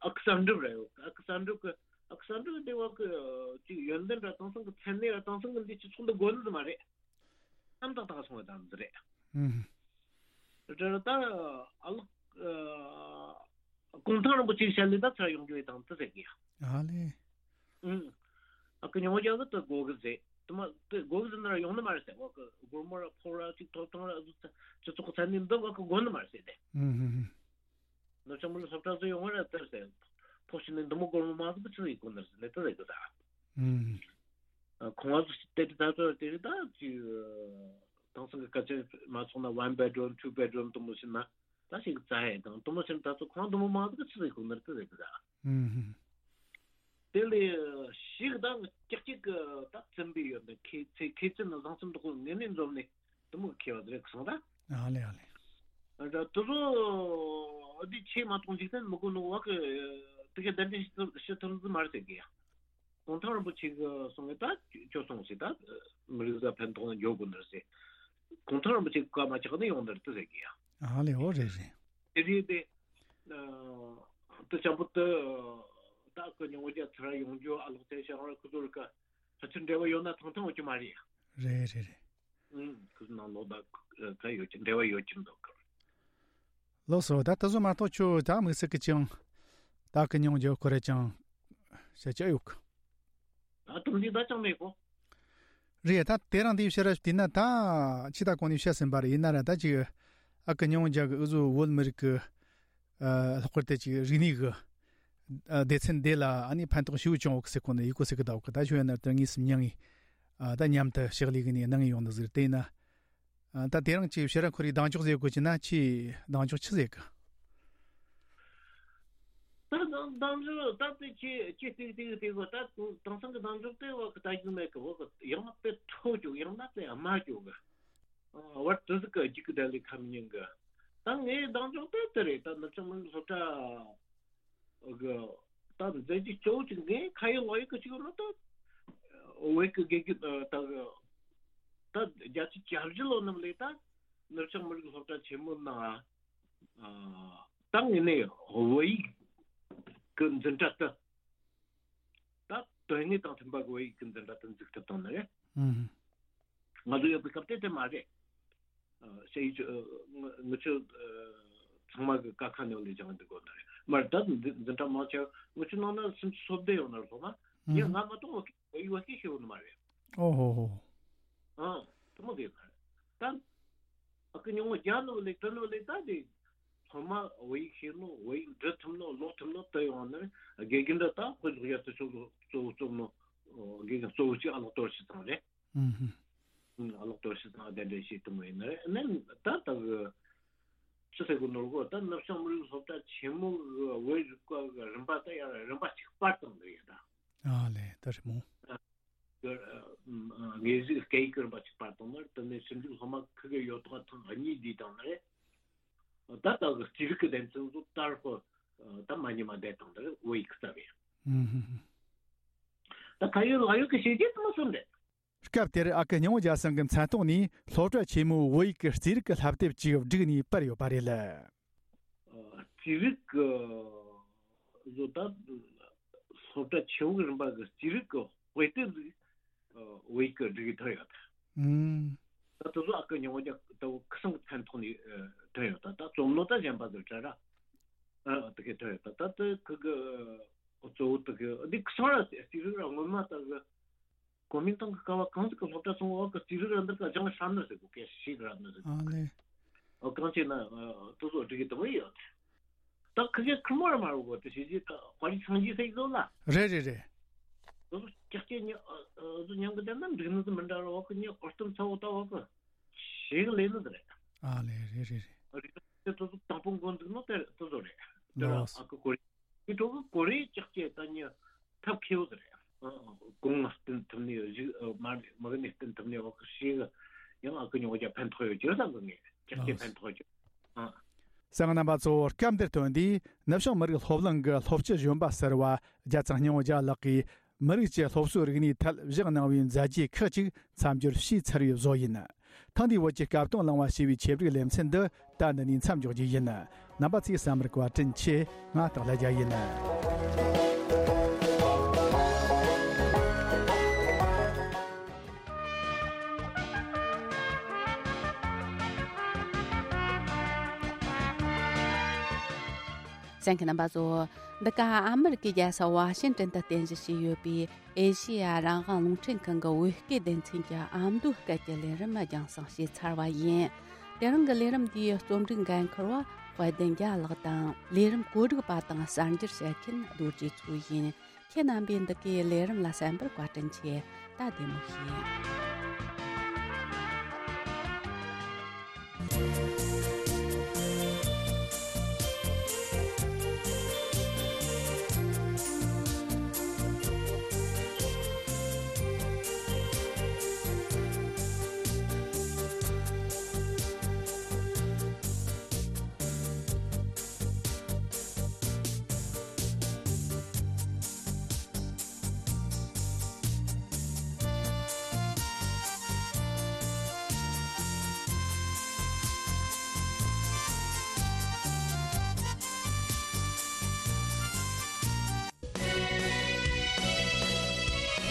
ཨ་ཁུ་གསར་འགྲུབ་ར་ཡོད་གི། ཨ་ཁུ་གསར་འགྲུབ་གི་ཨ་ཁུ་གསར་འགྲུབ་དེ་བ་གི་ཅིག་ཡོན་ཏན་ར་དེང་སང་གི་མཚན་གནས་ར་དེང་སང་གི་འདི་སྤྱི་ཚོགས་འདི་དགོས་ནི་མ་རེད། ཨམ་ཏག་ཏག་སོང་བ་དང་འདི་རེད། ཨུམ། རེད་ད་ཨ་ལགས་ཨ་གུང་ཐང་རིན་པོ་ཆེའི་ཞལ་ནས་ད་ཚུར་ཡོང་རྒྱུ་ཡི་དང་དུ་ཟེར་གི་ཡ། ཨ་ལེ། ཨུམ། ཨ་ཁུ་ཉི་མ་རྒྱལ་གི་དུ་དགོས་གི་ཟེར། དུ་མ་དུ་དགོས་གི་ཟེར་ན་ར་ཡོང་ནི་མ་རེད་ཟེར། བ་ཁུ་སྒོར་མོ་ར་ཕོགས་ར་ཅིག་ཐོབ་ཐང་ར་ཟུ་ཚ་སྤྱི་ཚོགས་ཚན་ནི་འདི་བ་ཁུ་དགོས་ནི་མ་རེད་ཟེར་ཏེ། ཨུམ་ཧུམ་ཧུམ། ནུབ་བྱང་མི་རིགས་སློབ་གྲྭ་ཚོ་ཡོང་བ་ར་དེར་ཟེར། ཕོགས་ཤི་ནི་འདི་མོ་སྒོར་མོ་མང་ཟིག་གི་ཆི་ཟིག་གོ་ནི་རེད་ཟེར་ནས་དུ་ཟེར་གི་ཟེར། ཨུམ། ཁོང་ཚོ་དེ་དུས་ད་ཚོད་དེ་རིང་ད་ཅིག་དེང་སང་གི་སྐད་ཆ་མ་སོང་ན་one bedroom two bedroom དུ་མོ་ཕྱིན་ན་ད་ཞིག་རྩ་ཧེ་དང་དུ་མོ་ཕྱིན་ད་ཚོ་ཁོང་དུ་མོ་མང་ཟིག་ཆི་ཟིག་གོ་ནར་དུ་ཟེར་གི་ད། ཨུམ། དེ་ལས་ཞིག་ད་ཀྱག་ཀྱག་གི་ད་བཙུན་པའི་ཡོད་ནི་ཁེ་ཚེ་ཁེ་ཚེ་ནི་བཟང་སེམས་དུ་ཁོ་ངེས་ནས་འཛོམས་ནས་དུ་མོ་ཁེ་བ་དེ་རེད་གི་སོང་ད། ཨ་ལེ་ཨ་ལེ། ད་དུ་ཚོ་འདི་ཆེས་མ་གཏོང་འཇིག་རྟེན་མི་དགོས་ནོ་བ་གི་དུ་ཁེ་ད་འདི་ཞི་ཐུར་ཞི་ཐུར་ཟི་མར་ཟེར་གི་ཡ། གུང་ཐང་རིན་པོ་ཆེ་གི་གསུང་གི་ད་ཁྱོད་སོང་ཞིག་ད་མི་རིགས་ས་ཕན་ཐོགས་ན་འཇོག་དགོས་ནར་ཟེར། གུང་ཐང་རིན་པོ་ཆེ་བཀའ་མ་ཆགས་ནས་ཡོང་ནར་དུ་ཟེར་གི་ཡ། ཨ་ལེ་འོ་རེད་རེད། དེ་རེད་དེ། དུ་ཅམ་པོ་དུ་ ད་ཁོ་ཉུང་བརྒྱ་ཚར་ཡོང་རྒྱུ་ཨ་ལོག་དེ་ཤང་ར་ཁོ་ཚོར་ཀ་ཕལ་ཆེར་འབྲེལ་བ་ཡོད་ན་ཐང་ཐང་ཡོད་ཀྱི་མ་རེད། རེད་རེད་རེད། ཨུམ། ཁོ་ཚོ་ནང་ལོགས་ད་ཁ་ཡོད་ཀྱི་འབྲེལ་བ་ཡོད་ཀྱི་འདུག་གི། ལགས་སོ། ད་ད་གཟོད་མ་གཏོགས་ཁྱོད་ད་དམིགས་བསལ་གྱི་ཅང་ད་ཀི་ཉུང་རྒྱུ་ཁོ་རེ་ཅང་བཤད་ཀྱི་ཡོད་གི། ད་དུང་འདི་ད་ཅང་མེད་གོ། རེད། ད་དེ་རིང་འདི་བཤད་ར་དེ་ན་ད་ཕྱི་ད་གོང་ནས་བཤད་ཟིན་པ་རེད། ཡིན་ན་ར་ད་ཅིག་ཨ་ཀི་ཉུང་རྒྱུ་གི་འུ་ཚོ་བོད་མི་རིགས་ཀྱི་ཨ་ལྷག་པར་དུ་ཅིག་རིག་གནས་ཀྱི་ཨ་སྡེ་ཚན་འདི་ལ་ཨ་ནི་ཕན་ཐོགས་ཞེ་པོ་བྱུང་ཡོད་གི་ཟེར་གོ་ནི་ཡི་གོ་ཟེར་གི་ད་གི། ད་ཞུ་ཡ་ན་ད་ངས་སུ་མྱང་ངས་ཨ་ད་མཉམ་དུ་ཕྱག་ལས་གི་ནས་གནང་ངས་ཡོང་ནི་ཟིག་རེད། དེ་ཡིན་ན་ཨ་ད་དེ་རིང་ཅིག་ཕྱིར་ར་ཁོ་རའི་གདེང་འཇོག་ཟེར་དགོས་ཀྱི་ན་ཁྱེད་གདེང་འཇོག་ཆི་ཟེར་གི། ད་གདེང་འཇོག་ད་དེ་ཁྱེད་ཁྱེད་ཏིག་ཏིག་ཏིག་གོ། ད་དེང་སང་གི་གདེང་འཇོག་དེ་བ་གི་ད་རྒྱུ་མེད་གི། བ་གི་ཡང་ན་དཔེ་མཐོ་རྒྱུ་ཡང་ན་དཔེ་དམའ་རྒྱུ་གི། ཨ་བར་དུ་ཟིག་གི་རྒྱུག་གི་ད་ལས་ཁམ་ཉིན་གི། ད་ངའི་གདེང་འཇོག་དེ་དེ་རེད། ད་ནུབ་བྱང་མི་རིགས་སློབ་གྲྭ་གི་ད་མཛད་རྗེས་གཙོ་བོ་གཅིག་ངས་ཁ་ཡོད་ལག་ཡོད་གི་གཅིག་ཡོད་ན་ད་བོད་ཀྱི་དགེ་རྒན་ད་གི་ད་བརྒྱད་ཅུ་གྱ་བཞི་ལོ་ནམ་ལས་ད་ནུབ་བྱང་མི་རིགས་སློབ་གྲྭ་ཆེན་མོ་ནང་ཨ་ད་ངས་ནས་བོད་ཡིག་གི་འཛིན་གྲྭ་ད་ད་དོན་དངོས་དང་མཐུན་པ་གི་བོད་ཡིག་གི་འཛིན་གྲྭ་ད་འཛུགས་ཐུབ་བཏང་ནི་རེད། ཨུམ། ང་ཚོ་ཡོད་པའི་སྐབས་དེ་དེ་མ་རེད། ཨ་ཞེས་ཨ་ང་ང་ཚོ་ཨ་ཚང་མ་གི་ཀ་ཁ་ནང་ལས་སྦྱངས་འདུག་གོ་ནི་རེད། མར་ད་འཛིན་འཛིན་གྲྭ་མང་ཆེ་ང་ཚོ་ནང་ན་སུམ་ཅུ་སོ་བདུན་ཡོད་ན་རེད། སློབ་མ་ཡང་ང་མ་གཏོགས་བོད་ཡིག་བོད་ཡིག་བོད་སྐད་ཤེས་ཡོད་ནི་མ་རེད། ཨོ་ཧོ་ཧོ། ཨང་། དེ་མོ་དེ་ཡོད་ནི་རེད། ད་ཨ་ཁུ་ཉུང་བ་རྒྱ་ནོ་ལེ་ཏི་ནོ་ལེ་ད་དེ་སློབ་མ་བོད་ཡིག་ཤེས་ནོ་བོད་ཡིག་འབྲི་ཐུབ་ནོ་ཀློག་ཐུབ་ནོ་དེ་ཡོང་ནི་རེད། དགེ་རྒན་འདྲ་ད་དཔེ་ཀློག་ཡ་དེ་ཚོ་གཙོ་བོ་གཙོ་བོ་ནོ་དགེ་རྒན་གཙོ་བོ་གཅིག་ཨ་ལོག་གཏོར་ཤི་ཚང་རེད། ཨུམ་ཧུམ། ཨ་ལོག་གཏོར་ཤི་ཚང་གདན་འདྲེན་བྱེད་ཐུབ་མོ་ཡིན་ནི་རེད། ནི་ད་ད་གི་ཅི་ཟེར་གོ་ནོར་གོ། ད་ནུབ་བྱང་མི་རིགས་སློབ་གྲྭ་ཆེན་མོ་གི་བོད་རིག་པ་གི་རིམ་པ་ད་ཡང་རིམ་པ་གཅིག་སྤར་བཏང་འདུག་ཡ་ད། ཨ་ལེ་ད་རེད་མོ། དངོས་གཞི་སྐད་ཡིག་རིམ་པ་གཅིག་སྤར་བཏང་ན་དེ་ནས་ཞིབ་འཇུག་སློབ་མ་ཁུ་གེ་ཡོད་ཐོག་ཐེངས་གཉིས་བསྡུས་བཏང་ནས་ད་ལྟ་གི་རྩིས་རིག་གི་སྡེ་ཚན་ཚོ་ལྟར་ཁོ་ད་མ་ཉི་མ་བསྡད་བཏང་ནས་བོད་ཡིག་རྩ་བའི་ད་ཁ་ཡོད་ལག་ཡོད་ཀྱི་བྱས་རྗེས་དུ་མ་སོན་རེད། སྐབས་དེར་ཨ་ཁུ་སྙིང་བོ་རྒྱ་སེང་གི་མཚན་ཐོག་ནས་སློབ་གྲྭ་ཆེན་མོའི་བོད་ཡིག་གི་རྩིས་རིག་གི་བསླབ་དེབ་ཅིག་བསྒྲིགས་ནས་སྤར་ཡོད་པ་རེད། རྩིས་རིག་གི་བཟོ་ལྟ་སློབ་གྲྭ་ཆེན་མོའི་རིམ་པ་གི་རྩིས་རིག་གི་དཔེ་དེབ་ཟིག་བོད་ཡིག་གི་སྒྲིག་ཐུབ་ཡོད། ཨུམ། ད་དེ་ཚོ་ཨ་ཁུ་སྙིང་བོ་རྒྱ་ད་ཁུ་སང་གི་མཚན་ཐོག་ནས་ཐོན་ཡོད། ད་ད་རྩོམ་ནོ་ད་གཞན་པ་ཟིག་དྲ་ར་ཨ་དེ་གས་ཐོན་ཡོད། ད་ད་དེ་ཁུ་གི་གཙོ་བོ་དེ་གི་འདི་ཁུ་སང་ར་རྩིས་རིག་ར་སྔོན་མ་ད་གི་གོ་མིན་ཏང་གི་སྐབས་བ་གང་ཟིག་གི་སློབ་གྲྭ་སོང་བ་གི་རྩིས་རིག་ར་འདིར་ཀ་སྦྱང་ཧྲ་ནི་ཟེར་གོ་སྐད་ཤིག་ར་ནི་ཟེར་གོ། ཨ་ལེ། ཨོ་གང་བྱས་ན་དེ་ཚོ་སྒྲིག་གི་དུ་བ་ཡོད། ད་ཁི་གེ་ཁི་མོ་ར་མ་རུ་གོ་དེ་ཞིག་ཅིག་དཔའ་རིས་སངས་རྒྱས་ཟེར་གི་ཟོ་ལ། རེད་རེད་རེད། དེ་ཚོ་ཀྱག་ཀྱེ་ཉི་ཨ་ཨ་ཚོ་མྱང་གི་དེ་ན་འགྲིག་ནི་དུ་མི་འདྲ་ར་བ་གི་ཉི་ཨོ་སྟོན་ཚ་བོ་ད་བ་གི་ཞིག་ལས་ནི་དེ་རེད། ཨ་ལེ་རེད་རེད་རེད། རིག་གནས་དེ་ཚོ་དང་པོ་འགོ་འཛུགས་ནོ་དེ་དེ་ཚོ་རེད། དེ་ར་ཨ་ཁུ་གོ་རེ། དེ་ཚོ་གི་གོ་རེ་ཀྱག་ཀྱེ་ད་ཉི་ཐབས་མཁས་བོ་དེ་རེད། གོང་ང་བསྟུན་ཐུབ་ནི་གཞུག་མ་མི་གནས་བསྟུན་ཐུབ་ནི་བ་གི་ཞིག་ཡང་ཨ་ཁུ་ཉོ་རྒྱ་ཕན་ཐོགས་ཡོད་ཅེས་བསམ་གི་ངས་ཀྱག་ཀྱེ་ཕན་ཐོགས་ཅེས། ཨ། གསན་མཁན་རྣམ་པ་ཚོ་སྐབས་འདིར་ཐོན་དུས་ནུབ་བྱང་མི་རིགས་སློབ་གླིང་གི་སློབ་སྤྱི་གཞོན་པ་ཟུར་པ་རྒྱལ་ཚང་སྙིང་བོ་རྒྱལ་ལགས་ཀྱིས་མི་རིགས་ཀྱི་སློབ་གསོའི་རིག་གནས་ཐད་བཞག་གནང་བའི་མཛད་རྗེས་ཁག་ཅིག་མཚམས་སྦྱོར་ཞུས་ཚར་བའི་བཟོ་ཡིན། ཐེངས་འདིའི་བོད་ཀྱི་སྐབས་དང་བླངས་པ་ཞེས་པའི་ཆེད་སྒྲིག་ལེ་ཚན་འདི་ད་འདི་ནས་མཚམས་འཇོག་རྒྱུ་ཡིན། རྣམ་པ་ཚོས་བསམ་པར་བཀའ་དྲིན་ཆེ། ང་སྟག་ལྷ་རྒྱལ་ཡིན། གསན་མཁན་རྣམ་པ་ཚོ། འདི་ག་ཨ་མི་རི་ཀའི་རྒྱལ་ས་ཝ་ཤིང་ཏན་དུ་རྟེན་གཞི་བྱས་ཡོད་པའི་ཨེ་ཤེ་ཡ་རང་དབང་རླུང་འཕྲིན་ཁང་གི་བོད་སྐད་སྡེ་ཚན་གྱི་ཨ་མདོའི་སྐད་ཀྱི་ལས་རིམ་རྒྱང་སྲིང་བྱས་ཚར་བ་ཡིན། དེ་རིང་གི་ལས་རིམ་འདིའི་རྩོམ་སྒྲིག་འགན་འཁུར་བ་དཔལ་ལྡན་རྒྱལ་ལགས་དང་། ལས་རིམ་གོ་སྒྲིག་པ་དང་གསར་འགྱུར་བཤད་མཁན་རྡོ་རྗེ་མཚོ་ཡིན། ཁྱེད་རྣམ་པས་འདི་གའི་ལས་རིམ་ལ་གསན་པར་བཀའ་དྲིན་ཆེ། ད་བདེ་མོ་བྱོས།